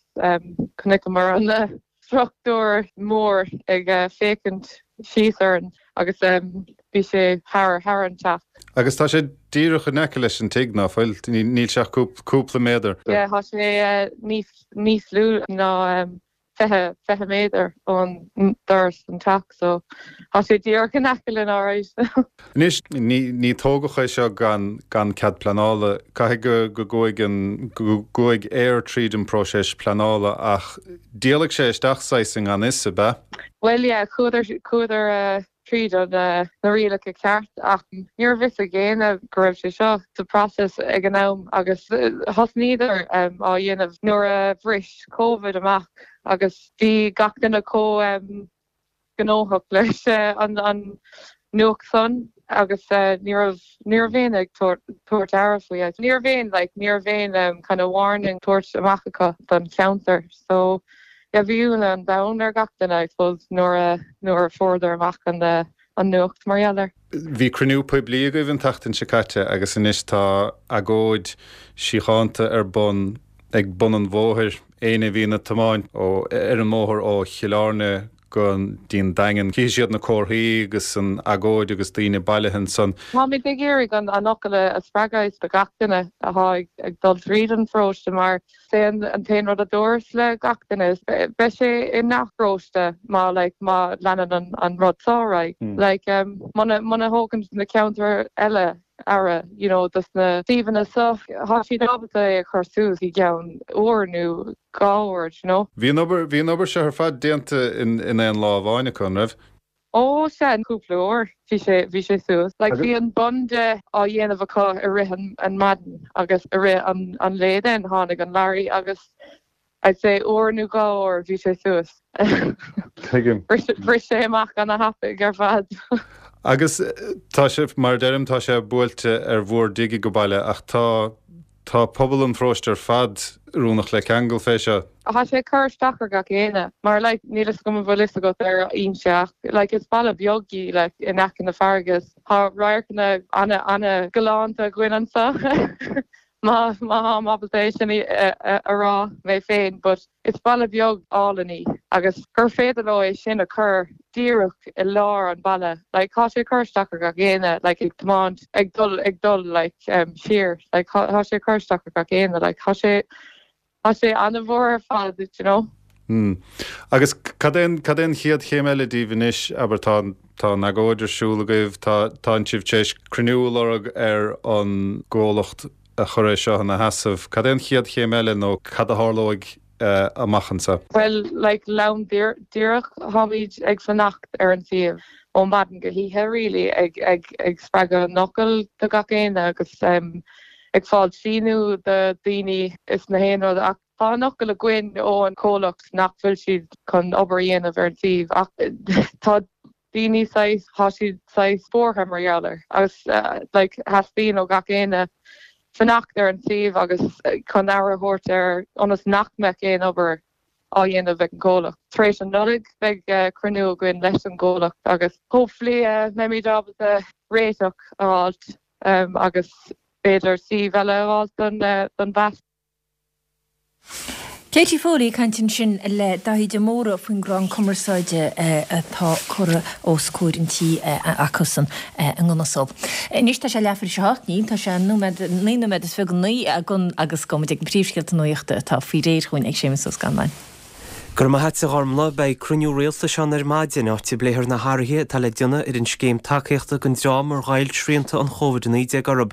chonaiceamar an struchtúr mór ag féachaint síos orainn agus bhí sé thar thar an teach. Agus tá sé díreach in aice leis an tigh, ná fuil? Níl sé ach cúpla méadar. Yeah, tá sé níos níos lú ná 20, 20 méadar ón doras an teach so tá sé díreach in aice linn alright. Anois, ní ní tógadh é seo gan gan cead pleanála. Caithfidh go go gcuaigh an go gcuaigh Eir tríd an próiseas pleanála ach d'éalaigh sé isteach saghas i ngan fhios, ab ea? Bhuel yeah, chuadar chuadar tríd an na rialacha ceart ach ní raibh fhios ag éinne go raibh sé seo sa process ag an am agus thosnaíodar á dhéanamh nuair a bhris Covid amach agus bhí gach duine chomh gnóthach leis an nuacht san agus ní raibh ní raibh éinne ag tabhairt aire faoi. Ní raibh aon like ní raibh aon kind of warning tabhairt amach acu don cheantar so yeah bhí ionadh an domhain ar gach duine I suppose nuair a nuair a fuaireadar amach an an nuacht mar gheall air. Bhí cruinniú poiblí agaibh an tseachtain seo caite agus anois tá agóid síochánta ar bun ag bun an bhóthair. Éinne a bhíonn ag tiomáint ó ar an mbóthar ó Chill Airne go dtí an Daingean, cífidh siad na comharthaí agus an agóid agus daoine bailithe ansan. Táimid ag iarraidh an fhocal a spreagadh do gach duine atá ag dul tríd an pharóiste mar is é an t-aon rud a dúras le gach duine is beidh sé i ngach paróiste má like má leanann an rud seo ar aghaidh. Like muna muna thógann na ceantair eile. aire you know dos na suíomhanna so. Thá siad ábalta é a chur suas i gceann uair nó 2 uair, you know. Bhí an obair, bhí an obair seo ar fad déanta in, in aon lá amháin acu, an raibh? Ó sea, cúpla uair bhí sé, bhí sé suas. Like bhí an bun de á dhéanamh acu i rith an, an maidin agus i rith an, an lae then tháinig an lorry agus I'd say uair nó 2 uair bhí sé suas. Tuigim. Bhris sé amach ana thapaidh ar fad. Agus tá sé, mar a deirim, tá sé buailte ar bhur dtigh ag baile ach tá, tá pobal an pharóiste ar fad oiriúnach le ceangal fé seo. Tá sé ag cur isteach ar gach éinne mar like níl fhios agam an bhfuil fhios agat ar Inse ach like is baile beag í like in aice na farraige is tá radharcanna ana ana galánta againn anso má má tháim ábalta é sin a rá mé féin but is baile beag álainn í agus gur féidir leo é sin a chur díreach i lár an bhaile like tá sé ag cur isteach ar gach éinne like ag tiomáint ag dul ag dul like siar like tá sé ag cur isteach ar gach éinne like tá sé tá sé an-mhór ar fad you know. Mm. Agus cad é an cad é an chéad chéim eile díbh anois abair tá tá an agóid ar siúl agaibh tá tánn sibh tar éis cruinniú a lorg ar an gcomhlacht a chuir é seo ina sheasamh. Cad é an chéad chéim eile nó cad a tharlóidh amach anseo? Bhuel, like, lom díreach, táimid ag fanacht ar an suíomh ó maidin go hoíche really, ag, ag, ag spreagadh an fhocal do gach éinne agus ag fáil síniú do daoine is na haon rud ach tá an fhocal againn ó an comhlacht nach bhfuil siad chun obair a dhéanamh ar an suíomh ach tá daoine saghas, tá siad saghas buartha mar gheall air agus like theastaíonn ó gach éinne fanacht ar an suíomh agus chun aire a thabhairt air ionas nach mbeadh aon obair á dhéanamh ag an gcomhlacht. Tar éis an Nollaig beidh cruinniú againn leis an gcomhlacht agus hopefully beimid ábalta réiteach a fháilt agus b'fhéidir suíomh eile a fháilt don mheas. Katie Foley ag caint ansin le Daithí de Mórdha faoin gcrann cumarsáide atá curtha os comhair an tí acusan i nDún Só. Anois tá sé leathuair tar éis a hocht, níl, tá sé nóiméad, 9 nóiméad is 29 agus gabhfaidh muid ag na príomhscéalta nuachta atá faoi réir chugainn ag Séamus Ó Scanláin. Go raibh maith a't a Ghormlaith. Beidh cruinniú rialtais ann ar maidin, áit a bpléifear na hathruithe atá le déanamh ar an scéim tacaíochta don dream ar ghoill srianta an Chóvid-19 orthu.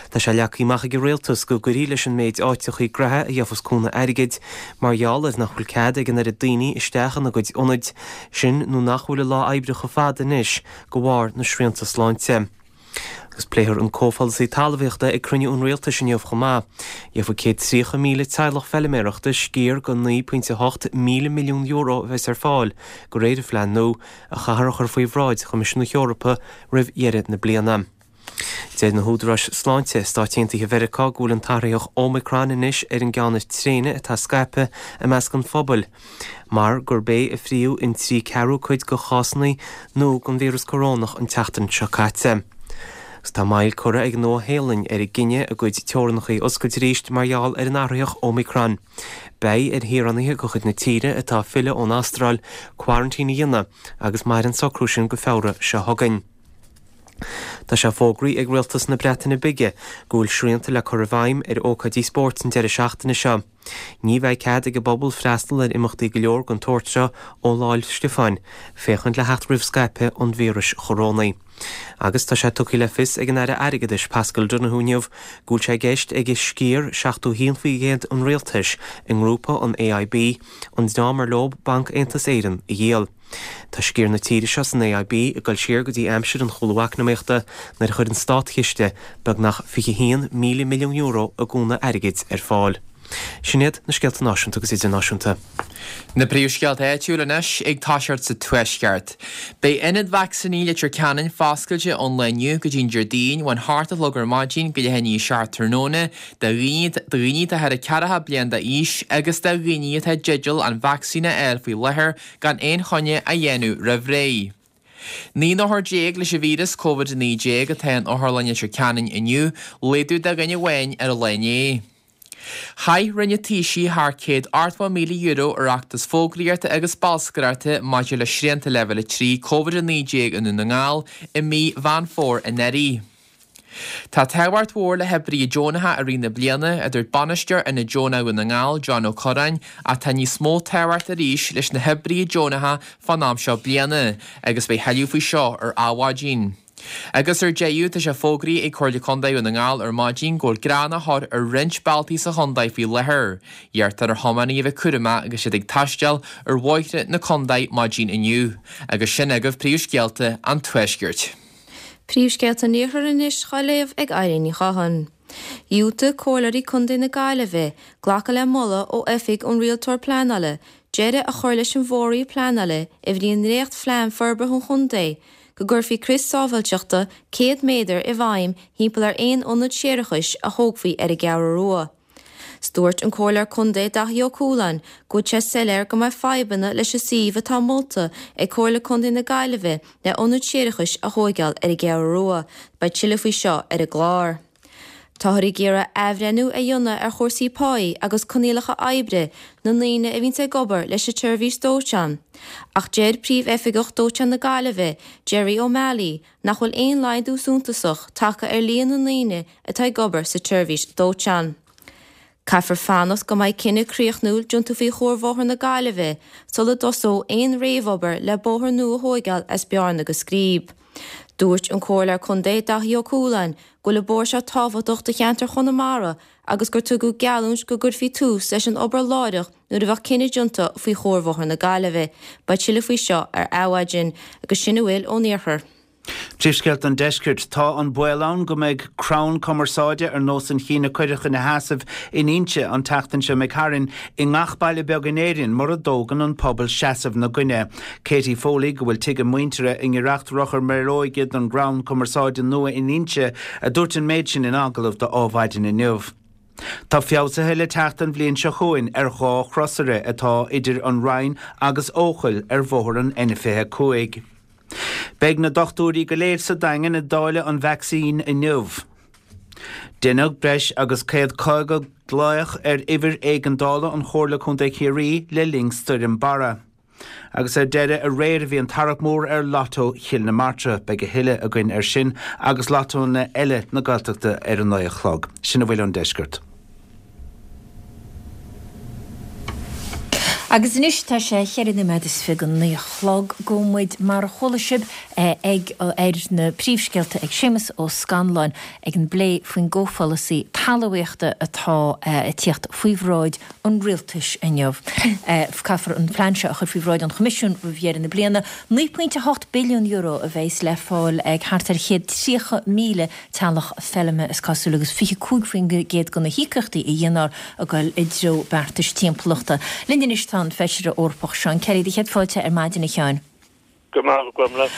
Tá sé leagtha amach ag an rialtas go gcuirfí leis an méid áiteachaí graithe a gheofas cúnamh airgid mar gheall ar nach bhfuil cead ag an oiread daoine isteach ina gcuid ionaid, sin nó nach bhfuil a lá oibre chomh fada anois de bharr na srianta sláinte. Agus pléifear an comhpholasaí talmhaíochta ag cruinniú an rialtais inniu chomh maith. Gheobhaidh 130,000 teaghlach feiliméarachta sciar de €9.8 míle milliún a bheas ar fáil de réir an phlean nua, a chaithfear a chur faoi bhráid Choimisiún na hEorpa roimh dheireadh na bliana. Deir na húdaráis sláinte i Stáit Aontaithe Mheiriceá go bhfuil an t-athraitheach Omicron anois ar an gceann is tréine atá scaipthe i measc an phobail. mar gurb é a fríodh in 3 ceathrú cuid de chásanna nua den víreas corónach an tseachtain seo caite. Agus tá moill curtha ag an Nua-Shéalainn ar a gcinneadh a gcuid teorannacha a oscailt arís mar gheall ar an athraitheach Omicron. Beidh ar shaoránaithe de chuid na tíre atá ag filleadh ón Astráil coraintín a dhéanamh agus mairfidh an socrú sin go Feabhra seo chugainn. Tá sé fógraithe ag Rialtas na Breataine Bige go bhfuil srianta le cur i bhfeidhm ar ócáidí spóirt an deireadh seachtaine seo. Ní bheidh cead ag an bpobal freastal ar imeachtaí go leor den tsórt seo ó Lá 'le Stiofáin, féachaint le theacht roimh scaipeadh an víris chorónaigh. Agus tá sé tugtha le fios ag an Aire Airgeadais Paschal Donohoe inniu go bhfuil sé i gceist aige sciar 71% an rialtais i ngrúpa an AIB, an dream ar leo Banc Aontas Éireann, a dhíol. Tá sciar na tíre seo san AIB ag dul siar go dtí aimsir an chúlú eacnamaíochta nuair a chuir an státchiste beagnach €21,000 milliún i gcúnamh airgid ar fáil. Sin iad na scéalta náisiúnta agus idirnáisiúnta. Na príomhscéalta áitiúil anois ag toiseacht sa Tuaisceart. Beidh ionad vacsaíní Leitir Ceanainn foscailte ón lá inniu go dtí an Déardaoin ón hocht a chlog ar maidin go leath i ndiaidh a 7 tráthnóna do dhaoine atá thar 40 bliain d'aois agus do dhaoine atá i dteideal an vacsaín a fháil faoi láthair gan aon choinne a dhéanamh roimh ré. 19 n-othar leis an víreas Covid-19 atá in Otharlann Leitir Ceanainn inniu, laghdú de dhuine amháin ar an lá inné. Chaith Roinn an Taoisigh thar €180,000 ar fheachtas fógraíochta agus bolscaireachta maidir le srianta Leibhéal 3 Covid-19 i nDún na nGall i mí Mheán Fómhair anuraidh. Tá tábhacht mhór le hoibrithe deonacha i rith na bliana, a dúirt Bainisteoir Ionad Deonach Dhún na nGall, John Ó Curráin, ach tá níos mó tábhacht arís leis na hoibrithe deonacha fán am seo bliana, agus beidh thuilleadh faoi seo ar Adhmhaidin. Agus ar deireadh, tá sé fógraithe ag Comhairle Contae Dhún na nGall ar maidin go bhfuil greannach ar roinnt bealtaí sa chontae faoi láthair. Iarrtar ar thiománaithe a bheith cúramach agus iad ag taisteal ar bhóithre na contae maidin inniu. Agus sin agaibh príomhscéalta an Tuaiscirt. Príomhscéalta an Iarthair anois dhá léamh ag Eileen Ní Chatháin. Dhiúltaigh Comhairleoirí Contae na Gaillimhe glacadh le moladh ó Oifig an Rialtóir Pleanála deireadh a chur leis an bhfóirdheois pleanála a bhí i ndréacht-phlean forbartha an chontae go gcuirfí crios sábháilteachta 100 méadar i bhfeidhm thimpeall ar aon ionad séarachais a thógfaí ar an gCeathrú Rua. 'S dúirt an Comhairleoir Contae Daithí Ó Cualáin go bhfuil sé soiléir go mbeidh fadhbanna leis an suíomh atá molta ag Comhairle Contae na Gaillimhe le ionad séarachais a thóigeáil ar an gCeathrú Rua. Beidh tuilleadh faoi seo ar an gclár. Táthar ag iarraidh athbhreithniú a dhéanamh ar chúrsaí páí agus coinníollacha oibre na ndaoine a bhíonns ag obair leis an tseirbhís dóiteáin. Ach deir Príomh-Oifigeach Dóiteáin na Gaillimhe, Gerry O'Malley, nach bhfuil aon laghdú suntasach tagtha ar líon na ndaoine atá ag obair sa tseirbhís dóiteáin. Caithfear fanacht go mbeidh cinneadh críochnúil déanta faoi Chuarbhóthar na Gaillimhe sula dtosóidh aon réamhobair le bóthar nua a thóigeáil as Bearna go Scríb. Dúirt an Comhairleoir Contae Daithí Ó Cualáin go bhfuil an bóthar seo tábhachtach do cheantar Chonamara agus gur tugadh geallúint go gcuirfí tús leis an obair láithreach nuair a bheadh cinneadh déanta faoi Chuarbhóthar na Gaillimhe. Beidh tuilleadh faoi seo ar Adhmhaidin. Agus sin a bhfuil ón Iarthar. Príomhscéalta an Deiscirt. Tá an baol ann go mbeidh crann cumarsáide ar nós an chinn a cuireadh ina sheasamh in Inse an tseachtain seo imigh tharainn i ngach baile beag in Éirinn mura dtógann an pobal seasamh 'na gcoinne. Katie Foley, go bhfuil tigh a muintire i ngiorracht Rothair Méaróige don gcrann cumarsáide nua in Inse, a dúirt an méid sin in agallamh do Adhmhaidin inniu. Tá feabhsuithe le teacht an bhliain seo chugainn ar dha chrosaire atá idir an Rinn agus Eochaill ar bhóthar an N25. Beidh na dochtúirí go léir sa Daingean ag dáileadh an vacsaín inniu. Deineadh breis agus 150 glaoch ar uimhir éigeandála an Chomhairle Contae Chiarraí le linn Stoirm Barra. Agus ar deireadh, aréir a bhí an tarrac mór ar Lotto Chill na Martra. Beidh a thuilleadh againn ar sin agus lottónna eile na Gaeltachta ar a naoi a chlog. Sin a bhfuil ón deisceart. Agus anois tá sé cheithre nóiméad is fiche go naoi a chlog. Gabhfaidh muid, mar a chuala sibh, ag ar na príomhscéalta ag Séamus Ó Scanláin ag an bplé faoin gcomhpholasaí talmhaíochta atá ag tíocht faoi bhráid an rialtais inniu. Caithfear an plean seo a chur faoi bhráid an Choimisiúin roimh dheireadh na bliana. €9.8 billiún a bheas le fáil ag thart ar 130,000 teaghlach feilme, is cosúil, agus 25% de na híocaíochtaí a dhéanfar ag dul i dtreo beartais timpeallachta. Linn anois tá an Feisire Eorpach Seán Kelly. Do chéad fáilte ar maidin, a Sheáin. Go raibh maith agat, a Ghormfhlaith.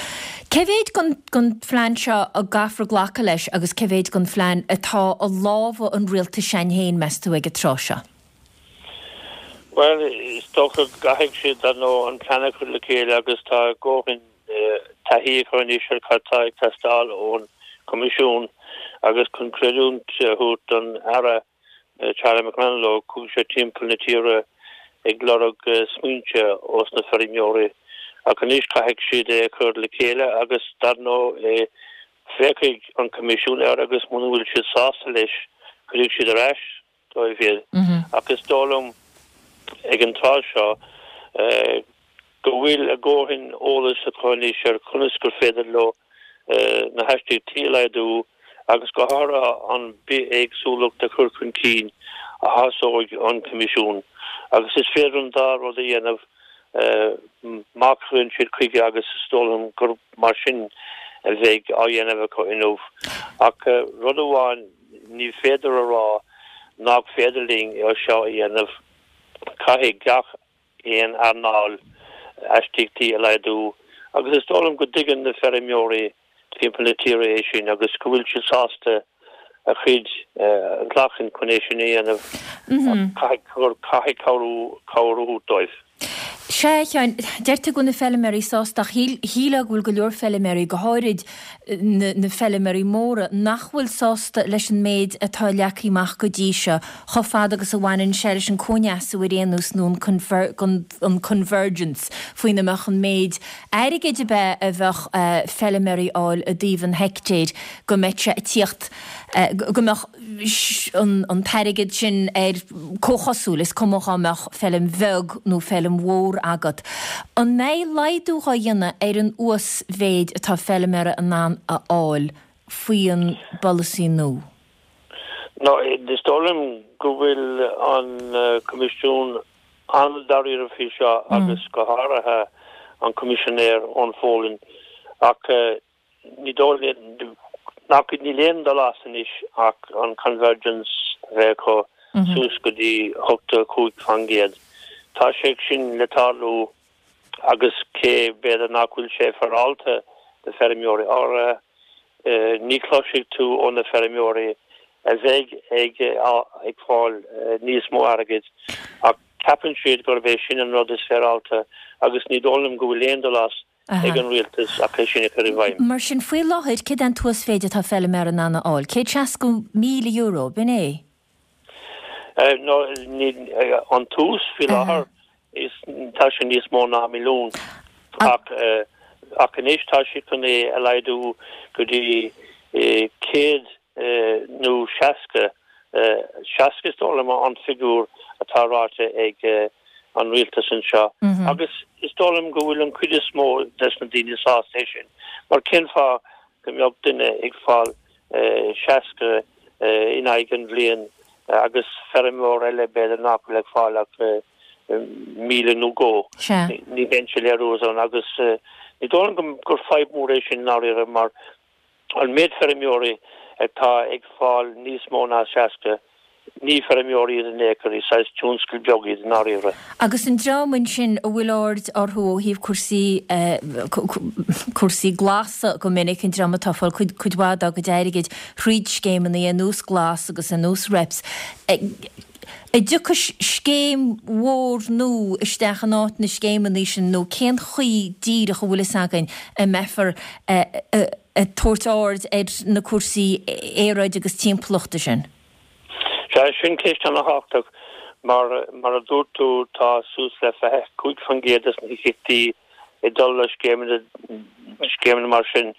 Cé mhéid den phlean seo a gcaithfear glacadh leis agus cé mhéid den phlean atá i lámha an rialtais s'againn féin, meas tú, ag an tráth seo? Bhuel, is dócha go gcaithfidh siad, dar ndóigh, an plean a chur le chéile agus tá a ndóthain taithí acu anois ar cad tá ag teastáil ón Choimisiún agus chun creidiúint a thabhairt don Aire Charlie McConalogue, chuaigh sé timpeall na tíre ag lorg smaointe ós na feirmeoirí ach anois caithfidh siad é a chur le chéile agus dar ndóigh féachfaidh an Coimisiún air agus muna bhfuil siad sásta leis cuirfidh siad ar ais dóibh iad. Ach is dóigh liom ag an tráth seo go bhfuil a ndóthain eolais acu anois ar conas gur féidir leo na hastaíochtaí a laghdú agus go háirithe an bithéagsúlacht a chur chun cinn a shásóidh an Coimisiún. Agus is féidir an dá rud a dhéanamh má chuireann siad chuige agus is dóigh liom gur mar sin a bheidh á dhéanamh acu inniu. Ach rud amháin Ní féidir a rá nach féidir linn é seo a dhéanamh. Caithfidh gach aon earnáil astaíochtaí a laghdú agus is dóigh liom go dtuigeann na feirmeoirí timpeall na tíre é sin agus go bhfuil siad sásta a chuid a ghlacadh chun é sin a dhéanamh ach caithfidh cabhrú cabhair a thabhairt dóibh. Sea, a Sheáin, deir tú go bhfuil na feilméaraí sásta ach shílfeá go bhfuil go leor feilméaraí, go háirid na feilméaraí móra, nach bhfuil sásta leis an méid atá leagtha amach go dtí seo, chomh fada agus a bhaineann sé leis an cóineasú ar aon nós nó an convergence, faoina mbeadh an méid airgid ab ea a bheadh feilméaraí a fháil i dtaobh an heictéir, go mbeadh sé ag tíocht, go mbeadh. an t-airgead sin ar comhchosúil, is cuma dhá mbeadh feilm bheag nó feilm mhór ann. agat. An mbeidh laghdú dhá dhéanamh ar an uasmhéid atá feilméara in ann a fháil faoi an bpolasaí nua? No, is dóigh liom go bhfuil an Coimisiún an-dáiríre faoi seo agus go háirithe an Coimisinéir Eoin Folan ach ní dóigh liom nach níl aon dul as anois ach an convergence a bheith acu suas go dtí 85%. Tá sé sin le tarlú agus cé b'fhéidir nach bhfuil sé féaráilte do feirmeoirí áirithe, ní chloisfidh tú ó na feirmeoirí a bheidh ag ag fáil níos mó airgid ach ceapann siad gurb é sin an rud is féaráilte agus ní dóigh liom go bhfuil aon dul as ag an rialtas ach é sin a chur i bhfeidhm. Mar sin, faoi láthair, céard é an t-uasmhéid atá feilméara in ann a fháil? €160,000, b'in é? No, an t-uas faoi láthair, is tá sé níos mó ná milliún. Ach ach anois tá siad chun é a laghdú go dtí 100 nó 60, 60 is dóigh liom an figiúr atá ráite ag an rialtas anseo. Agus is dóigh liom go bhfuil an chuid is mó des na daoine sásta é sin. Mar cén fáth go mbeadh duine ag fáil 60 in aghaidh an bhliain agus feirmeoir eile b'fhéidir nach bhfuil ag fáil ach 1,000 nó dhó. Ní bheidh sé léiriú ann agus ní dóigh liom gur fadhb mhór é sin i ndáiríre mar an méid feirmeoirí atá ag fáil níos mó ná 60 Ní feirmeoirí iad in aon chor, is saghas tionscal beag iad i ndáiríre. Agus an dream ansin a bhfuil aird orthu ó thaobh cúrsaí, cúrsaí glasa go minic, an dream atá ag fáil cuid, cuid mhaith dá gcuid airgid thríd scéimeanna ar nós Glas agus ar nós REPS, an dtiocfaidh scéim mhór nua isteach in áit na scéimeanna sin nó cén chaoi díreach a bhfuil fhios againn a mbeifear ag tabhairt aird ar na cúrsaí aeráide agus timpeallachta sin? Sea, sin ceist ana-thábhachtach. Mar, mar a dúirt tú, tá suas le 25% des na híocaíochtaí ag dul le scéimeanna, scéimeanna mar sin.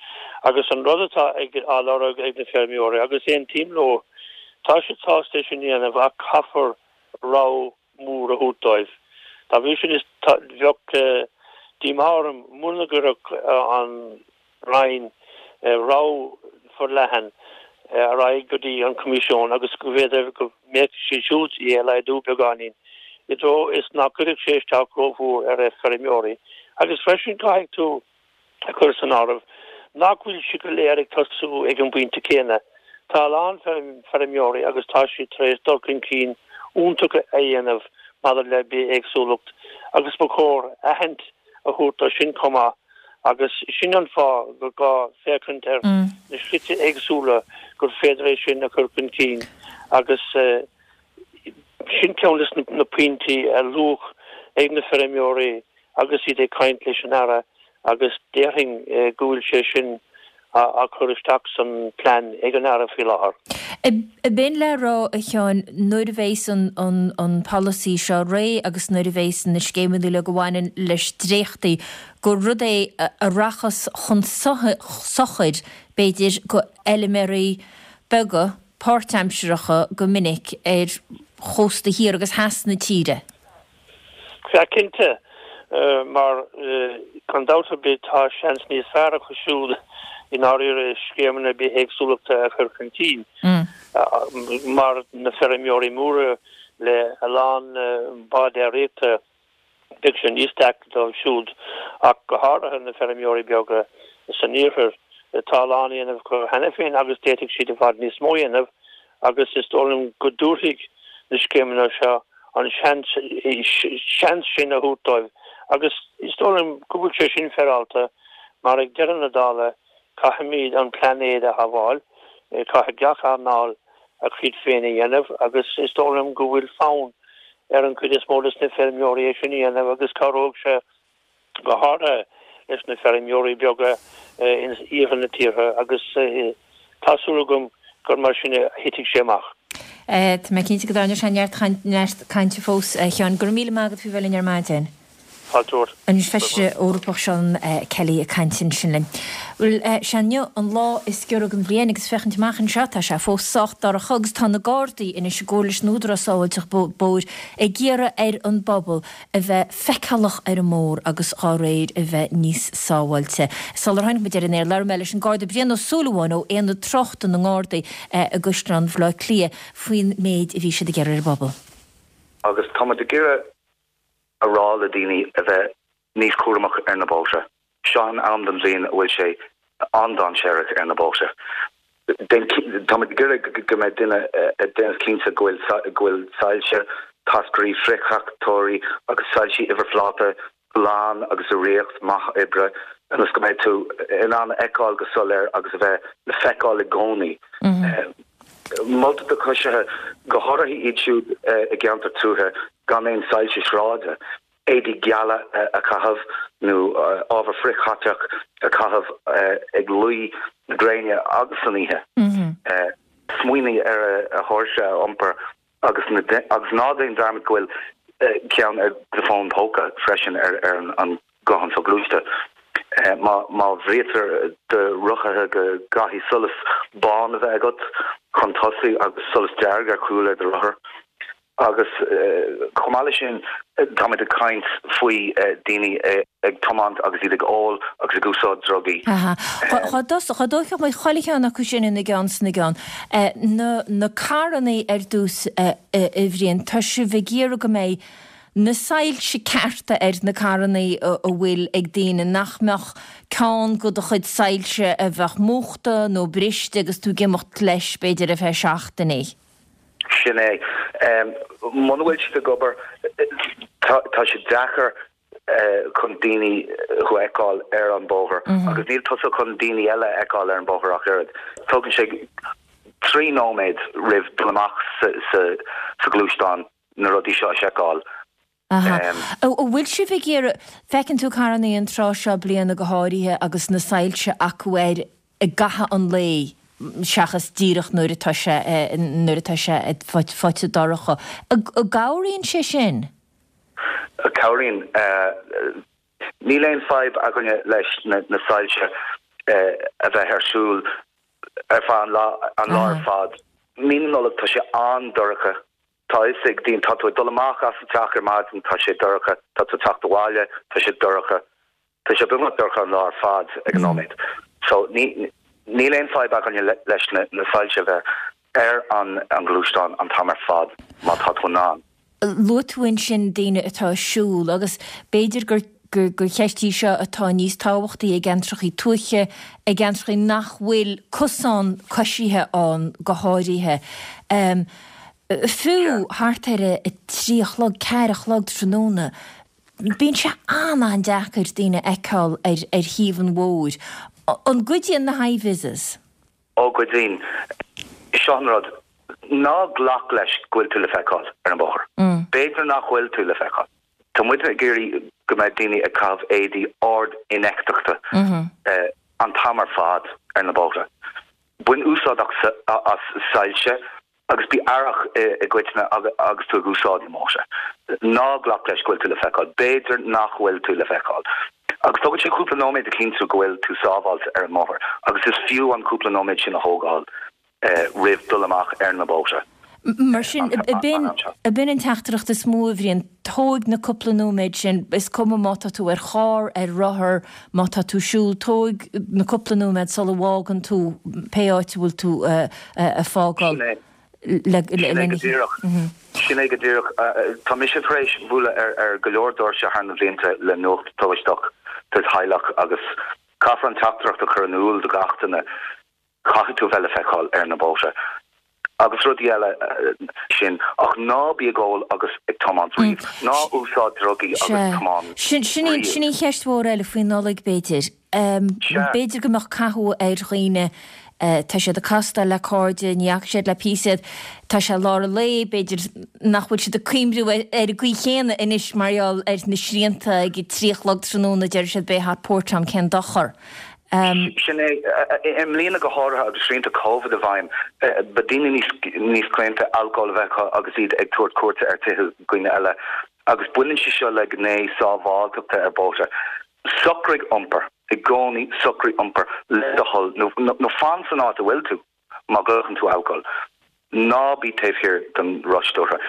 Agus an rud atá ag, á lorg ag na feirmeoirí, agus aontaím leo, tá siad sásta é sin a dhéanamh ach caithfear rogha mór a thabhairt dóibh. Dá bhrí sin, is, tá, bheadh díomá orm muna gcuirfeadh an Roinn rogha forleathan ar aghaidh go dtí an Coimisiún agus go bhféidir go mbeadh siad siúd é a laghdú beagáinín i dtreo is nach gcuirfeadh sé isteach rómhór ar feirmeoirí. Agus freisin caithfidh tú a chur san áireamh nach bhfuil siad go léir ag tosú ag an bpointe céanna. Tá a lán feirmeoirí agus tá siad tar éis dul chun cinn iontach a dhéanamh maidir le bithéagsúlacht agus ba chóir aithint a thabhairt dó sin chomh maith agus sin an fáth gur gá féachaint ar na slite éagsúla gur féidir é sin a chur chun cinn agus sin ceann de na pointí a luadh ag na feirmeoirí agus iad ag caint leis an Aire agus déarfainn go bhfuil sé sin á chur isteach san plean ag an Aire faoi láthair. Ab in le rá, a Sheáin, nuair a bheas an polasaí seo réidh agus nuair a bheas na scéimeanna uilig a bhaineann leis dréachtaithe, gur rud é a rachas chun sochair, b'fhéidir, go fheilméaraí beaga páirtaimseartha go minic ar chósta thiar agus theas na tíre? Sea, cinnte, mar gan dabht ar bith tá seans níos fearr acu siúd i ndáiríre scéimeanna bithéagsúlachta a chur chun cinn, mar na feirmeoirí móra le a lán bád déiríochta, beidh sé níos deacra dóibh siúd, ach go háirithe na feirmeoirí beaga san iarthar. Tá a lán á dhéanamh acu cheana féin agus d'fhéadfadh siad i bhfad níos mó a dhéanamh agus is dóigh liom go dtabharfaidh na scéimeanna seo an seans sin a thabhairt dóibh agus is dóigh liom go bhfuil sé sin féaráilte mar ag deireadh na dála caithfimid an plainéad a shábháil, caithfidh gach earnáil a cuid féin a dhéanamh agus is dóigh liom go bhfuil fonn ar an chuid is mó de na feirmeoirí é sin a dhéanamh agus cabhróidh sé go háirithe leis na feirmeoirí beaga in iarthar na tíre agus tá súil agam gur mar sin a thitfidh sé amach. Tá mé cinnte go dtarlóidh sé neart cainte fós, a Sheáin. Go raibh míle maith agat faoi bheith linn ar maidin. Fáilte romhat. An Feisire Eorpach Seán Kelly ag caint ansin linn. Bhuel, sé inniu an lá is giorra den bhliain agus féachaint amach anseo tá sé fós sách dorcha agus tá na Gardaí anois i gcomhar leis an Údarás Sábháilteachta Bóthair ag iarraidh ar an bpobal a bheith feiceálach ar an mbóthar agus dhá réir a bheith níos sábháilte. Sular tháinig muid ar an aer labhair mé leis an Garda Brian Ó Súilleabháin ó Aonad Tráchta na nGardaí i gCaisleán Bhaile Átha Cliath faoin méid a bhí siad ag iarraidh ar an bpobal. Agus tá muid ag iarraidh a rá le daoine a bheith níos cúramach ar na bóithre. Seo an am den bhliain a bhfuil sé an-dainséarach ar na bóithre. Táimid ag iarraidh go mbeidh duine ag déanamh cinnte go bhfuil go bhfuil soilse, táscairí friththráchtóirí agus soilsí uimhirphláta glan agus i riocht maith oibre ionas go mbeidh tú in ann a fheiceáil go soiléir agus a bheith le feiceáil i gcónaí. Moltar do choisithe, go háirithe iad siúd i gceantar tuaithe gan aon soilse sráide, éadaí geala a chaitheamh nó ábhar frithchaiteach a chaitheamh ag luí na gréine agus san oíche. Smaoinigh ar a thóirse a iompar agus agus ná déan dearmad go bhfuil ceann ar do fón póca freisin ar an guthán soghluaiste. Má má bhriatar do rothaithe go gcaithfidh solas bán a bheith agat chun tosaigh agus solas dearg ar chúl ar do rothar. Agus chomh maith leis sin, táimid ag caint faoi daoine ag tiomáint agus iad ag ól agus ag úsáid drugaí. Aha. Dhá dtógfadh muid chuile cheann acu sin ina gceann 's ina gceann. Na na carrannaí ar dtús, a Bhriain, tá sibh ag iarraidh go mbeidh na soilse cearta ar na carrannaí a bhfuil ag daoine, nach mbeadh ceann de do chuid soilse a bheadh múchta nó briste agus tú ag imeacht leis b'fhéidir ar feadh seachtainí. Sin é. Muna bhfuil siad ag obair, tá sé deacair chun daoine thú a fheiceáil ar an bóthar agus níl tusa chun daoine eile a fheiceáil ar an bóthar ach oiread. Tógann sé 3 nóiméad roimh dul amach sa ghluaisteán na rudaí seo a sheiceáil. Aha. An bhfuil sibh ag iarraidh, feiceann tú carrannaí an tráth seo bliana go háirithe agus na soilse acu air i gcaitheamh an lae seachas díreach nuair atá sé, nuair atá sé faighte dorcha. An gcabhraíonn sé sin? Cabhraíonn. Níl aon fadhb againne leis na soilse a bheith ar siúl ar feadh an lá, an lá ar fad. Mí na Nollag tá sé an-dorcha. Tá a fhios ag daoine, tá tú ag dul amach as an teach ar maidin, tá sé dorcha, tá tú ag teacht abhaile, tá sé dorcha. Tá sé beagnach dorcha an lá ar fad ag an nóiméad. So ní, níl aon fadhb againne leis na, na soilse a bheith ar an, an gluaisteán an t-am ar fad má tá tú in ann. Luaigh tú ansin daoine atá ag siúl agus b'fhéidir gur, gur, gur cheist í seo atá níos tábhachtaí i gceantrachaí tuaithe, i gceantrachaí nach bhfuil cosán coisithe ann go háirithe. Fiú thart ar a 3 a chlog, 4 a chlog tráthnóna, bíonn sé an-an-deacair daoine a fheiceáil ar ar thaobh an bhóthair. An gcuidíonn na hi-vises? Ó, cuidíonn. Seo an rud, ná glac leis go bhfuil tú le feiceáil ar an bhóthar. B'fhéidir nach bhfuil tú le feiceáil. Tá muid ag iarraidh go mbeidh daoine ag caitheamh éadaí ard-infheictheachta an t-am ar fad ar na bóithre. Bain úsáid as soilse agus bí aireach i gcoitinne agus tú ag úsáid na mbóithre. Ná glac leis go bhfuil tú le feiceáil. B'fhéidir nach bhfuil tú le feiceáil. Agus tógann sé cúpla nóiméad a chinntiú go bhfuil tú sábháilte ar an mbóthar agus is fiú an cúpla nóiméad sin a thógáil roimh dul amach ar na bóithre. Mar sin, ab in an teachtaireacht is mó, a Bhriain, tóig na cúpla nóiméad sin, is cuma má tá tú ar charr, ar rothar, má tá tú ag siúl, tóig na cúpla nóiméad sula bhfágann tú pé áit a bhfuil tú ag fágáil. Sin é. Sin é go díreach. Sin é go díreach. Tá mise tar éis bualadh ar go leor doirse thar na blianta le nuacht tubaisteach do theaghlach agus caithfear an teachtaireacht a chur in iúl do gach duine. Caithfidh tú a bheith le feiceáil ar na bóithre agus rudaí eile sin ach ná bí ag ól agus ag tiomáint riamh. Ná úsáid drugaí agus tiomáin riamh. Sin í an cheist mhór eile faoi Nollaig b'fhéidir. B'fhéidir go mbeadh cathú ar dhaoine, tá siad ag castáil le cairde, ní fhaca siad le píosa iad, tá sé lár an lae, b'fhéidir nach bhfuil siad ag cuimhniú ar an gcaoi chéanna anois mar gheall ar na srianta ag a 3 a chlog tráthnóna, deir siad beidh hot port ann, cén dochar. Sin é. I mbliana go háirithe agus srianta Covid i bhfeidhm, beidh daoine níos níos claonta alcól a bheith acu agus iad ag tabhairt cuairte ar tithe dhaoine eile. Agus baineann sé seo le gné sábháilteachta ar bóithre. Socraigh iompar, i gcónaí socraigh iompar le do thoil nó fan san áit a bhfuil tú má ghlacann tú alcól. Ná bí taobh thiar den roth stiúrtha.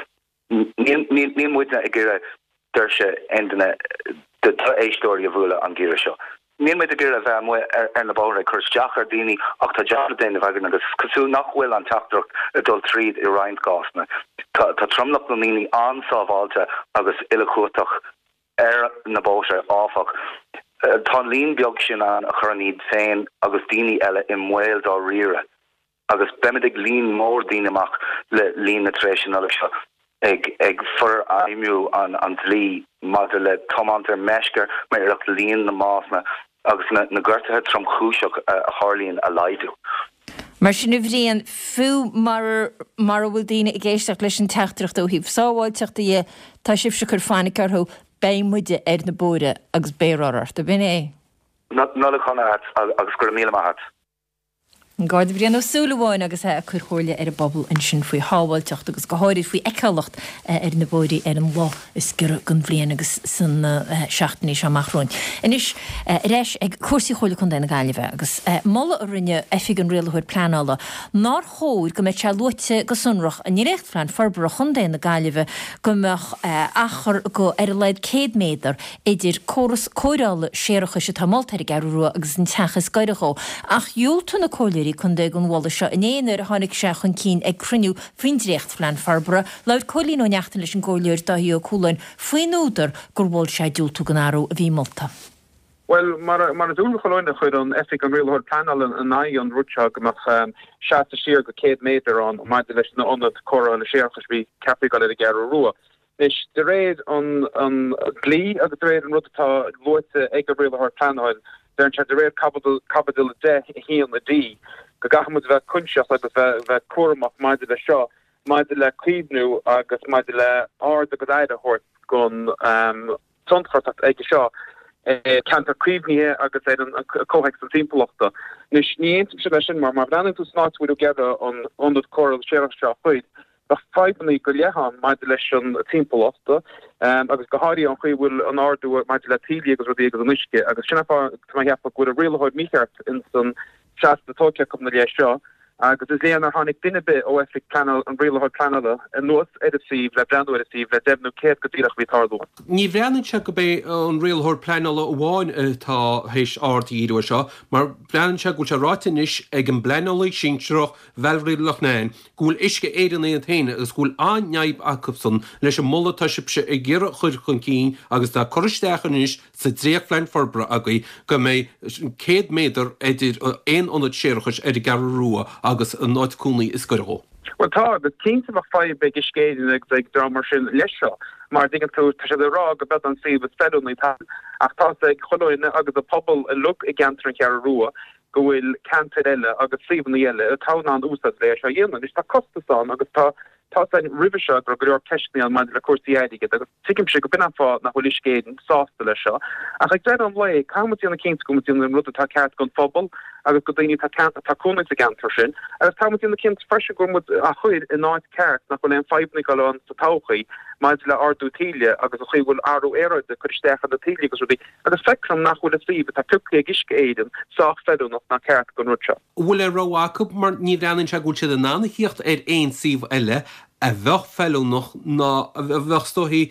Níl muidne ag iarraidh doirse aon duine de d'éisteoirí a bhualadh an geimhreadh seo. Níl muid ag iarraidh a bheith amuigh ar na bóithre ag cur isteach ar dhaoine ach tá jab le déanamh againn agus is cosúil nach bhfuil an teachtaireacht ag dul tríd i roinnt cásanna. Tá tromlach na ndaoine an-sábháilte agus uilechumhachtach ar na bóithre, áfach. Tá an líon beag sin ann a chuireann iad féin agus daoine eile i mbaol dáiríre. Agus beimid ag líon mór daoine amach le linn na tréimhse Nollag seo ag ag forfheidhmiú an an dlí maidir le tiomáint ar meisce mar iarracht líon na mbásanna agus na na gortuithe tromchúiseach a tharlaíonn a laghdú. Mar sin, a Bhriain, fiú mara mara bhfuil daoine ag éisteacht leis an teachtaireacht ó thaobh sábháilteachta dhe, tá sibhse ag cur fainic orthu, beidh muide ar na bóithre agus beidh rothar ort, ab in é? Nollaig shona agat agus go raibh míle maith agat. An Garda Brian Ó Súilleabháin agus é ag cur comhairle ar an bpobal ansin faoi shábháilteacht agus go háirid faoi fheiceálacht ar na bóithrí ar an lá is giorra den bhliain agus sna seachtainí seo amach romhainn. Anois ar ais ag cúrsaí Chomhairle Contae na Gaillimhe agus moladh a rinne Oifig an Rialaitheoir Pleanála nár chóir go mbeadh sé luaite go sonrach i nDréachtphlean Forbartha Chontae na Gaillimhe go mbeadh achar go ar a laghad 100 méadar idir córas cóireála séarachais atá molta ar an gCeathrú Rua agus an teach is gaire dhó. Ach dhiúltaigh na comhairleoirí contae don mholadh seo inné nuair a tháinig sé chun cinn ag cruinniú faoin dréachtphlean forbartha. Labhair Cóilín Ó Neachtain leis an gComhairleoir Dáithí Ó Cualáin faoin údar gur mhol sé diúltú don athrú a bhí molta. Bhuel, mar is eol do chuile dhuine, chuir an Oifig an Rialaitheoir Pleanála in aghaidh an rud seo go mbeadh seasamh siar go 100 méadar ann maidir leis na ionad cóireála séarachais a bhí ceaptha ag dul ar an gCeathrú Rua. Anois, de réir an dlí agus de réir an rud atá luaite ag an Rialaitheoir Pleanáil, deireann sé de réir Caibidil 10, 1 D, go gcaithfidh muid a bheith coinsiasach agus bheith cúramach maidir leis seo, maidir le caomhnú agus maidir le aird agus aire a thabhairt don tionchar atá aige seo ar cheantar caomhnaithe agus ar an comhthéacs an timpeallachta. Anois, ní aontaímse leis sin mar má bhreathnaíonn tú san áit a bhfuil ag iarraidh an ionad cóireála séarachais seo a chur, Bheadh fadhbanna go leith ann maidir leis an timpeallacht agus go háirithe an chaoi a bhfuil an ardú maidir le taoillí agus rudaí agus an uisce agus sin an fáth tá mé ag ceapadh go bhfuil an rialaitheoir mícheart ins an seasamh atá tógtha acu ina leith seo agus is léir nár tháinig duine ar bith ó oifig pleanála an rialaitheoir pleanála anuas ar an suíomh le breathnú ar an suíomh le deimhniú céard go díreach a bhí ag tarlú ann. Ní bhreathnaíonn sé go b'é an rialaitheoir pleanála amháin atá théis aird a dhíriú air seo mar breathnaíonn sé go bhfuil sé ráite anois ag an bpleanálaí sinsearach Valerie Loughnane, go bhfuil Uisce Éireann iad féin agus go bhfuil an-fhadhb acusan leis an moladh atá sibhse ag iarraidh a chur chun cinn agus atá curtha isteach anois sa dréachtphlean forbartha agaibh go mbeidh 100 méadar idir aon ionad séarachais ar an gCeathrú Rua agus an áit cónaí is gaire dhó. Bhuel tá, agus cinnte bheadh fadhb ag Uisce Éireann agus ag dream mar sin leis seo, mar dtuigeann tú, tá siad ag rá go b'eod an suíomh is feiliúnaí ach tá's ag chuile dhuine agus an pobal uilig i gceantar an Cheathrú Rua go bhfuil ceantair eile agus suíomhanna eile atá in ann úsáid le é seo a dhéanamh. Anois tá costas ann agus tá tá's againn roimhe seo go raibh go leor ceisteanna ann maidir le cúrsaí airgid agus tuigimse go b'in an fáth nach bhfuil Uisce Éireann sásta leis seo. Ach ag deireadh an lae caithfidh muid déanamh cinnte go bhfuil muid déanamh an rud atá ceart don phobal agus do daoine atá atá cónaí sa gceantar sin agus caithfidh muid déanamh cinnte freisin go bhfuil muid á chur in áit ceart nach bhfuil aon fadhbanna ag dul ann sa todhchaí maidir le ardú taoille agus an chaoi a bhfuil athrú aeráide ag cur isteach ar na taoillí agus rudaí. Agus feictear dom nach bhfuil an suíomh atá pioctha ag Uisce Éireann sách feiliúnach ná ceart don rud seo. An bhfuil aon rogha acu mar ní bhreathnaíonn sé go bhfuil siad in ann a thíocht ar aon suíomh eile a bheadh feiliúnach ná a bheadh is dóichí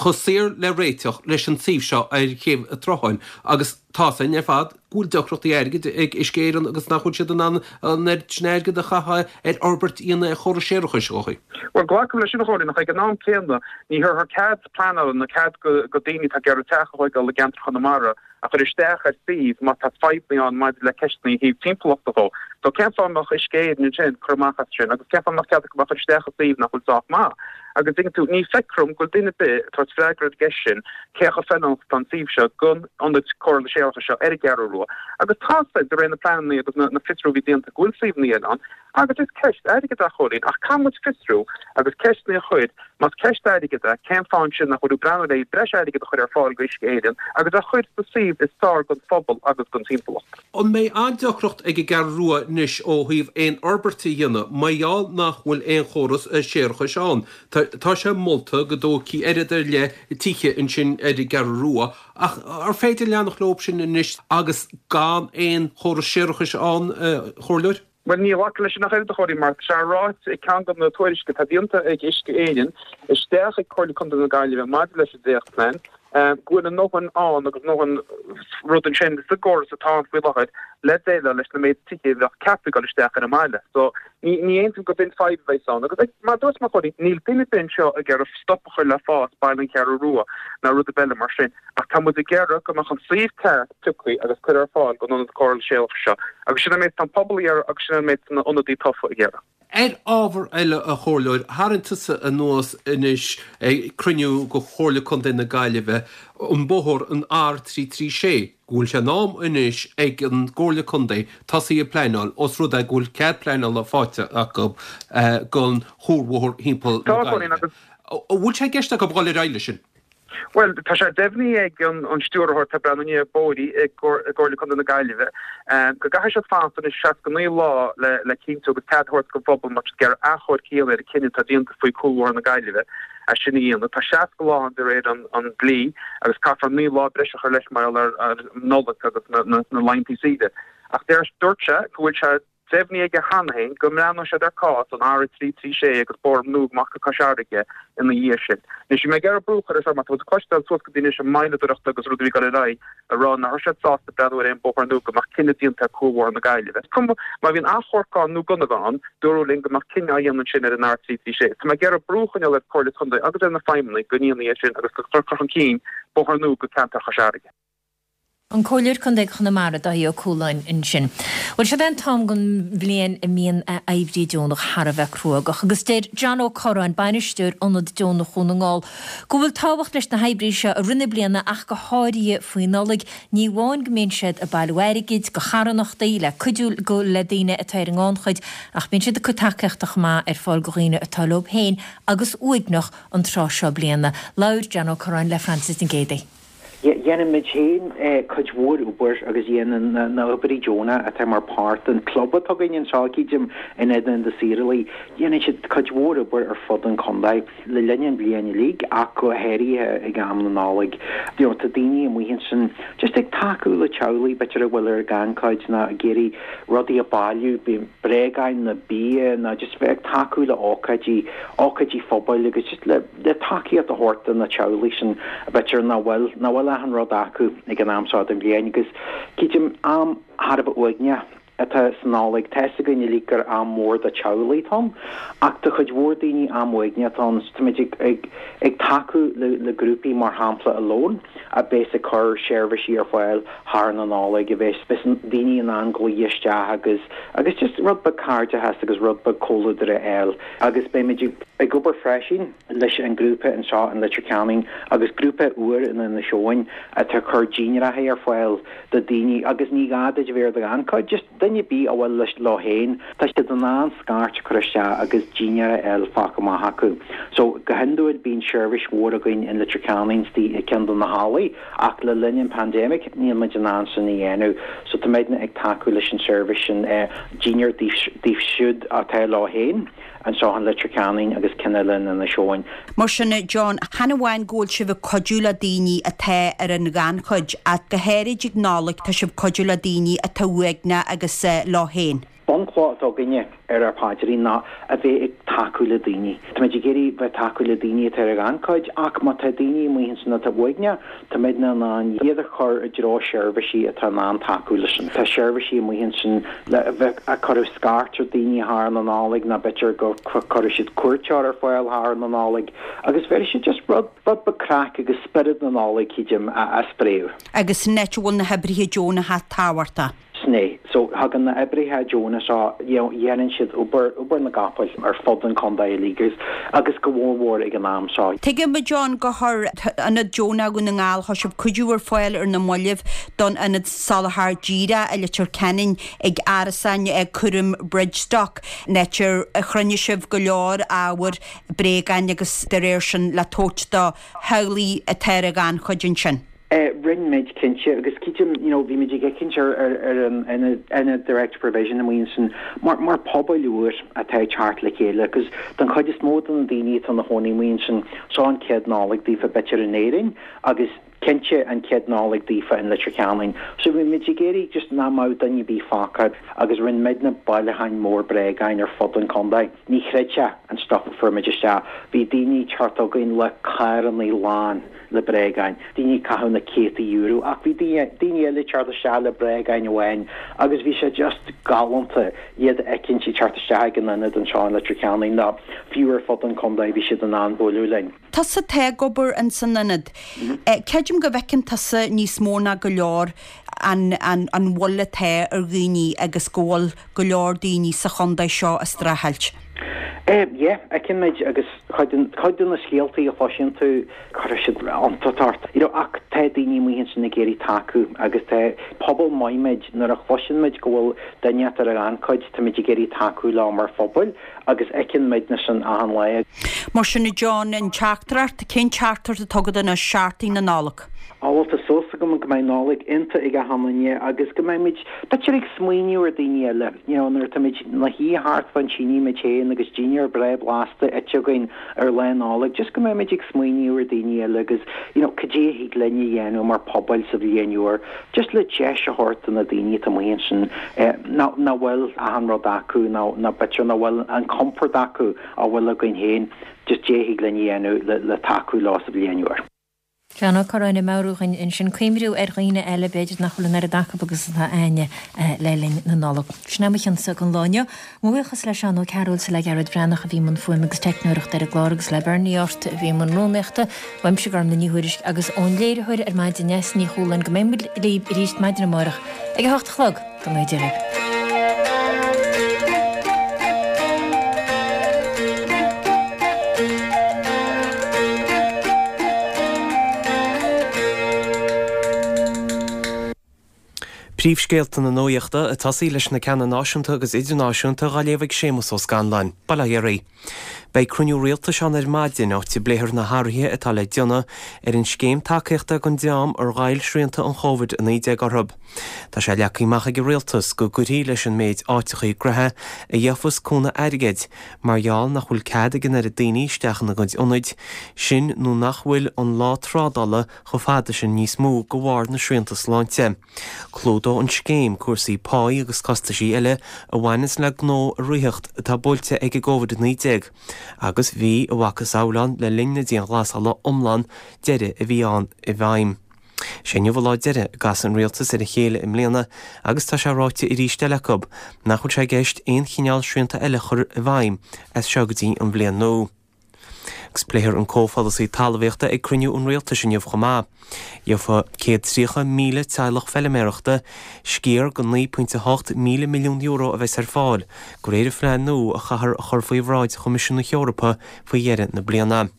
chomh saor le réiteach leis an suíomh seo ar Chéibh an tSrutháin agus tá's againn ar fad go bhfuil deacrachtaí airgid ag Uisce Éireann agus nach bhfuil siad in ann an oiread sin airgid a chaitheamh ar fhorbairt a dhéanamh ar chóras séarachais, a Dháithí. Bhuel, glacaim leis sin a Chóilín, ach ag an am céanna ní thabharfar cead pleanála nó cead do daoine atá ag iarraidh teach a thóigeáil i gceantar Chonamara a chur isteach ar suíomh má tá fadhbanna ann maidir le ceisteanna ó thaobh timpeallachta dhó. So cén fáth a mbeadh Uisce Éireann ansin cur amach as sin agus cén fáth a mbeadh cead acu a chur isteach i suíomh nach bhfuil sách maith? Agus dtuigeann tú, ní feictear dom go bhfuil duine ar bith ag tabhairt freagra ar an gceist sin cé chomh feiliúnach atá an suíomh seo don ionad cóireála séarachais seo ar an gCeathrú Rua. Agus tá 's a'd, de réir na pleananna agus na fiosrú a bhí déanta go bhfuil suíomhanna eile ann agus is ceist airgid é a Chóilín ach caithfidh muid fiosrú agus ceisteanna a chur. Más ceist airgid é, cén fáth ansin nach bhfuil ag breathnú le breis airgid a chur ar fáil go Uisce Éireann agus a chur sa suíomh is fearr don phobal agus don timpeallacht? An mbeidh an-deacracht ag an gCeathrú Rua anois ó thaobh aon fhorbairt a dhéanamh mar gheall nach bhfuil aon chóras séarachais ann? Tá sé molta go dtógfaí oiread ar leith tithe ansin ar an gCeathrú Rua ach ar féidir leanacht leo sin anois agus gan aon chóras séarachais ann, a Chomhairleoir? Bhuel, ní ghlacfainn leis sin ach oiread, a Chóilín, mar tá sé ráite i gceann de na tuairiscí atá déanta ag Uisce Éireann isteach ag Comhairle Contae na Gaillimhe maidir leis an dréachtphlean, go bhfuil a ndóthain ann agus a ndóthain rud ansin sa gcóras atá ann faoi láthair le déileáil leis na méid tithe a bheadh ceaptha ag dul isteach ar an mbaile. So, ní ní aontaím gurb in fadhb a bheas ann. Agus mar a dúirt mé, a Chóilín, níl duine ar bith anseo ag iarraidh stop a chur le fás baile an Cheathrú Rua ná rud ar bith eile mar sin. Ach tá muid ag iarraidh go mbeadh an suíomh ceart pioctha agus curtha ar fáil don ionad cóireála séarachais seo. Agus sin an méid atá an pobal ag iarraidh agus sin an méid atá na hionadaí tofa ag iarraidh. Ar ábhar eile, a Chomhairleoir, tharraing tusa anuas anois ag cruinniú de Chomhairle Contae na Gaillimhe an bóthar, an R336, go bhfuil sé in am anois ag an gComhairle Contae tosaí ag pleanáil os rud é go bhfuil cead pleanála faighte acu don chuarbhóthar thimpeall na Gaillimhe. An bhfuil sé i gceist acu dhul ar aghaidh leis sin? Bhuel, tá sé deimhnithe ag an Stiúrthóir atá ag breathnú i ndiaidh bóithrí i gComhairle Contae na Gaillimhe go gcaithfidh siad fanacht anois 69 lá le cinntiú agus cead a thabhairt don phobal má tá siad ag iarraidh achomharc a dhéanamh ar an cinneadh atá déanta faoi Cúlbhóthar na Gaillimhe é sin a dhéanamh. Tá 60 lá ann de réir an dlí agus caithfear 9 lá breise a chur leis mar gheall ar an Nollaig agus na laethanta saoire. Ach dúirt sé go bhfuil sé Deimhnithe aige cheana féin go mbreathnóidh siad ar cás an R336 agus bóthar nua amach go Cois Fharraige ina dhiaidh sin. Anois, bhí mé ag iarraidh brú a chur air seo mar tá muid ag cloisteáil suas go dtí anois an moilleadóireacht agus rudaí a bhí ag dul ar aghaidh ag rá nach raibh siad sásta breathnú ar aon bóthar nua go mbeadh cinneadh déanta ar Cúlbhóthar na Gaillimhe. Is cuma má bhíonn achomharc ann nó gan a bheith ann, dúradh linn go mbeadh cinneadh á dhéanamh ansin ar an R336. Tá mé ag iarraidh brú a choinneáil ar Chomhairle Contae agus ar na feidhmeannaigh go ndéanfaí é sin agus go cur chun cinn bóthar nua go ceantar Chois Fharraige. An Comhairleoir Contae Chonamara, Dáithí Ó Cualáin ansin. Bhuel, seo é an t-am den bhliain a mbíonn oibrí deonach thar a bheith cruógach agus deir John Ó Corráin, bainisteoir Ionad Deonach Dhún na nGall, go bhfuil tábhacht leis na hoibrithe seo i rith na bliana ach go háirithe faoi Nollaig. Ní amháin go mbíonn siad ag bailiú airgid do charthanachtaí le cuidiú le daoine atá ar an ngannchuid ach bíonn siad ag cur tacaíochta chomh maith ar fáil do dhaoine atá leo féin agus uaigneach an tráth seo bliana. Labhair John Ó Corráin le Frances Nic Géadaigh. Dhéanaimid féin cuid mhór obair agus dhéanann na hoibrithe deonacha atá mar páirt den club atá againn anseo, cídim, in Ionad na Saorálaí, dhéanann siad cuid mhór obair ar fud an chontae le linn an bhliain uilig ach go háirithe ag am na Nollag. You know, tá daoine amuigh ansin just ag tacú le teaghlaigh b'fhéidir a bhfuil ar an ghannchuid nó ag iarraidh rudaí a bailiú, bréagáin nó bia nó just bheith ag tacú le ócáidí, ócáidí phobail agus just le. le tacaíocht a thabhairt do na teaghlaigh sin b'fhéidir nach bhfuil, nach bhfuil achan rud acu ag an am seo den bhliain agus cídim am thar a bheith uaigneach atá sa Nollaig. Tá fhios againn uilig gur am mór do teaghlaigh atá ann ach do chuid mhór daoine am uaigneach atá ann. Táimid ag, ag, ag tacú le, le grúpaí mar shampla Alone a bheas ag cur seirbhísí ar fáil thar na Nollag a bheas, bheas daoine in ann glaoch isteach agus, agus just rud beag cairdeachas agus rud beag comhluadar a fháil agus beimid ag. Ag obair freisin leis an grúpa anseo in Leitir Ceanainn agus grúpa úr in Inis Eoghain atá ag cur dinnéaracha ar fáil do daoine agus ní gá duit a bheith ar do ghannchuid, just duine ar bith a bhfuil leis leo féin, tá siad in ann scairt a chur isteach agus dinnéar a fháil fágtha amach acu. So go hiondúil bíonn seirbhís mhór againn in Leitir Ceanainn istigh i gceann de na hallaí ach le linn an pandemic níl muid in ann sin a dhéanamh so táimidne ag tacú leis an seirbhís sin dinnéar daoibh siúd atá leo féin. anseo in Leitir Ceanainn agus ceann eile in Inis Eoghain. Mar sin, John, chan amháin go bhfuil sibh ag cuidiú le daoine atá ar an ghannchuid, ach go háirid ag Nollaig tá sibh ag cuidiú le daoine atá uaigneach agus leo féin. Bunchloch atá againne ar ár bpaidrín ná a bheith ag tacú le daoine. Táimid ag iarraidh bheith tacú le daoine atá ar an ghannchuid ach má tá daoine amuigh ansin atá uaigneach, Táimidne in ann iad a chur i dtreo seirbhísí atá in ann tacú leis sin. Tá seirbhísí amuigh ansin le bheith ag cur scairt ar daoine thar na Nollag nó b'fhéidir go cuirfidh siad cuairteoir ar fáil thar na Nollag agus bhéarfaidh siad just rud rud beag craic agus spiorad na Nollag, cídim, a spréadh. Agus san áit a bhfuil na hoibrithe deonacha tábhachtach. Sin é. So, thagann na oibrithe deonacha seo, you know, dhéanann siad obair, obair na gcapall ar fud an chontae uilig agus, agus go mhór mhór ag an am seo. Tuigim, a John, gur chuir Ionad Deonach Dhún na nGall, chuir sibh cuidiú ar fáil ar na mallaibh don Ionad Soláthair Díreach i Leitir Ceanainn ag árasáin cúraim Bridgestock, an áit ar chruinnigh sibh go leor ábhair, bréagáin agus dá réir sin le tabhairt do theaghlaigh atá ar an ghannchuid ansin. Rinne muid, cinnte, agus creidim, you know, bhí muid ag féachaint ar ar ar an ionad ionad direct provision amuigh ansin mar mar pobal úr atá ag teacht le chéile agus don chuid is mó de na daoine atá ina chónaí amuigh ansin, seo an chéad Nollaig daofa b'fhéidir in Éirinn agus cinnte an chéad Nollaig daofa in Leitir Ceanainn. So bhí muid ag iarraidh just nach mbeadh duine ar bith fágtha agus rinne muidne bailiúcháin mór bréagáin ar fud an chontae. Ní chreidfeá an stuff a fuair muid isteach. Bhí daoine ag teacht chugainn le carrannaí lán le bréagáin, daoine ag caitheamh na céadta euro ach bhí daoine, daoine eile ag teacht isteach le bréagáin amháin agus bhí sé just galánta iad a fheicint ag teacht isteach ag an ionad anseo in Leitir Ceanainn nó fiú ar fud an chontae bhí siad in ann bualadh linn. Tusa atá ag obair ins an ionad. Creidim go bhfeiceann tusa níos mó ná go leor an, an, an mhoill atá ar dhaoine agus go bhfuil go leor daoine sa chontae seo ag streachailt. Yeah, feiceann muid agus cuid cuid de na scéaltaí a chloiseann tú, cuireann siad iontas ort. You know, ach tá daoine amuigh ansin ag iarraidh tacú agus tá pobal maith muid, nuair a chloiseann muid go bhfuil duine ata ar an ghannchuid, tá muid ag iarraidh tacú leo mar phobal agus feiceann muidne sin achan lá. Mar sin, a John, an teachtaireacht, cén teachtaireacht atá agat anois, seachtain na Nollag? Á bhuel tá súil agam go mbeidh Nollaig iontach ag achan duine agus go mbeidh muid b'fhéidir ag smaoineamh ar daoine eile, you know nuair atá muid 'na shuí thart fán tine muid féin agus dinnéar breá blasta ite againn ar Lá Nollag, just go mbeidh muid ag smaoineamh ar daoine eile agus you know cad é a thig linn a dhéanamh mar pobal sa bhliain úr just le deis a thabhairt do na daoine atá amuigh ansin eh nach bhfuil achan rud acu nó nó b'fhéidir nach bhfuil an compord acu a bhfuil againn féin, just cad é a thig linn a dhéanamh le le tacú leo sa bhliain úr. John Ó Curráin ag meabhrú dhúinn ansin cuimhniú ar dhaoine eile, b'fhéidir nach bhfuil an oiread acu agus atá a'inne le linn na Nollag. Sin é mo chionsa don lá inniu. Mo bhuíochas le Seán Ó Cearúil 's le Gearóid Breathnach a bhí i mbun fuaime agus teicneoireachta ar an gclár agus le Bernie Ort a bhí i mbun rúnaíochta. Uaimse Gormlaith Ní Thuairisg agus ón léiritheoir ar maidin Neasa Ní Chualáin go mbeidh muid libh arís maidin amárach ag a hocht a chlog. Go mbeidh Dia libh. Príomhscéalta na nuachta ag tosaí leis na ceanna náisiúnta agus idirnáisiúnta dhá léamh ag Séamus Ó Scanláin. Bail ó Dhia oraibh. Beidh cruinniú rialtais ann ar maidin, áit a bpléifear na hathruithe atá le déanamh ar an scéim tacaíochta don dream ar ghoill srianta an Chóvid-19 orthu. Tá sé leagtha amach ag an Rialtas go gcuirfí leis an méid áiteachaí gnoithe a gheofas cúnamh airgid mar gheall nach bhfuil cead ag an oiread daoine isteach ina gcuid ionaid, sin nó nach bhfuil an lá trádála chomh fada sin níos mó de bharr na srianta sláinte. Clúdóidh an scéim cúrsaí páí agus costaisí eile a bhaineanns le gnó a ritheacht atá buailte ag an gCovid-19 agus bhí a mhacasamhail ann le linn na dianghlasála iomlán deiridh a bhí ann i bhfeidhm. Sé inniu an lá deiridh a gcasfaidh an rialtas ar a chéile i mbliana agus tá sé ráite arís eile acu nach bhfuil sé i gceist aon chineál srianta eile a chur i bhfeidhm as seo go dtí an bhliain nua. Agus pléifear an comhpholasaí talmhaíochta ag cruinniú an rialtais inniu chomh maith. Gheobhaidh 130,000 teaghlach feiliméarachta sciar den €9.8 míle milliún a bheas ar fáil de réir an phlean nua a chaithfear a chur faoi bhráid Choimisiún na hEorpa faoi dheireadh na bliana.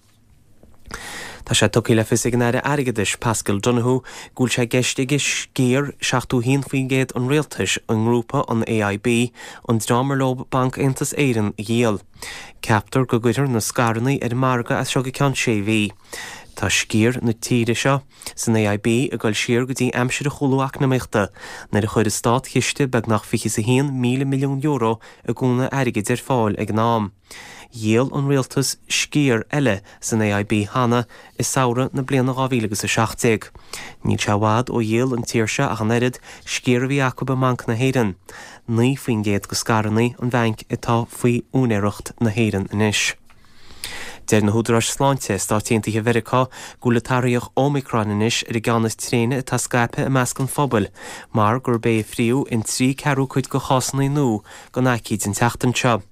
Tá sé tugtha le fios ag an Aire Airgeadais, Paschal Donohoe, go bhfuil sé i gceist aige sciar 71% an rialtais i ngrúpa an AIB, an dream ar leo Banc Aontas Éireann, a dhíol. Ceaptar go gcuirfear na scaireanna ar an margadh as seo go ceann sé mhí. Tá sciar na tíre seo san AIB ag dul siar go dtí aimsir an chúlú eacnamaíochta, nuair a chuir an státchiste beagnach €21,000 milliún i gcúnamh airgid ar fáil ag an am. Dhíol an rialtas sciar eile san AIB cheana i samhradh na bliana 2017. Níl sé i bhfad ó dhíol an tír seo ach an oiread, sciar a bhí acu i mBanc na hÉireann. 9% de scaireanna an bhainc atá faoi úinéireacht na hÉireann anois. Deir na húdaráis sláinte i Stáit Aontaithe Mheiriceá go bhfuil an t-athraitheach Omicron anois ar an gceann is tréine atá scaipthe i measc an phobail mar gurb é a phríomh in trí ceathrú cuid de chásanna nua den aicíd an tseachtain seo.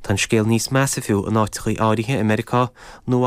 Tá an scéal níos measa fiú in áiteachaí áirithe i Meiriceá, Nua.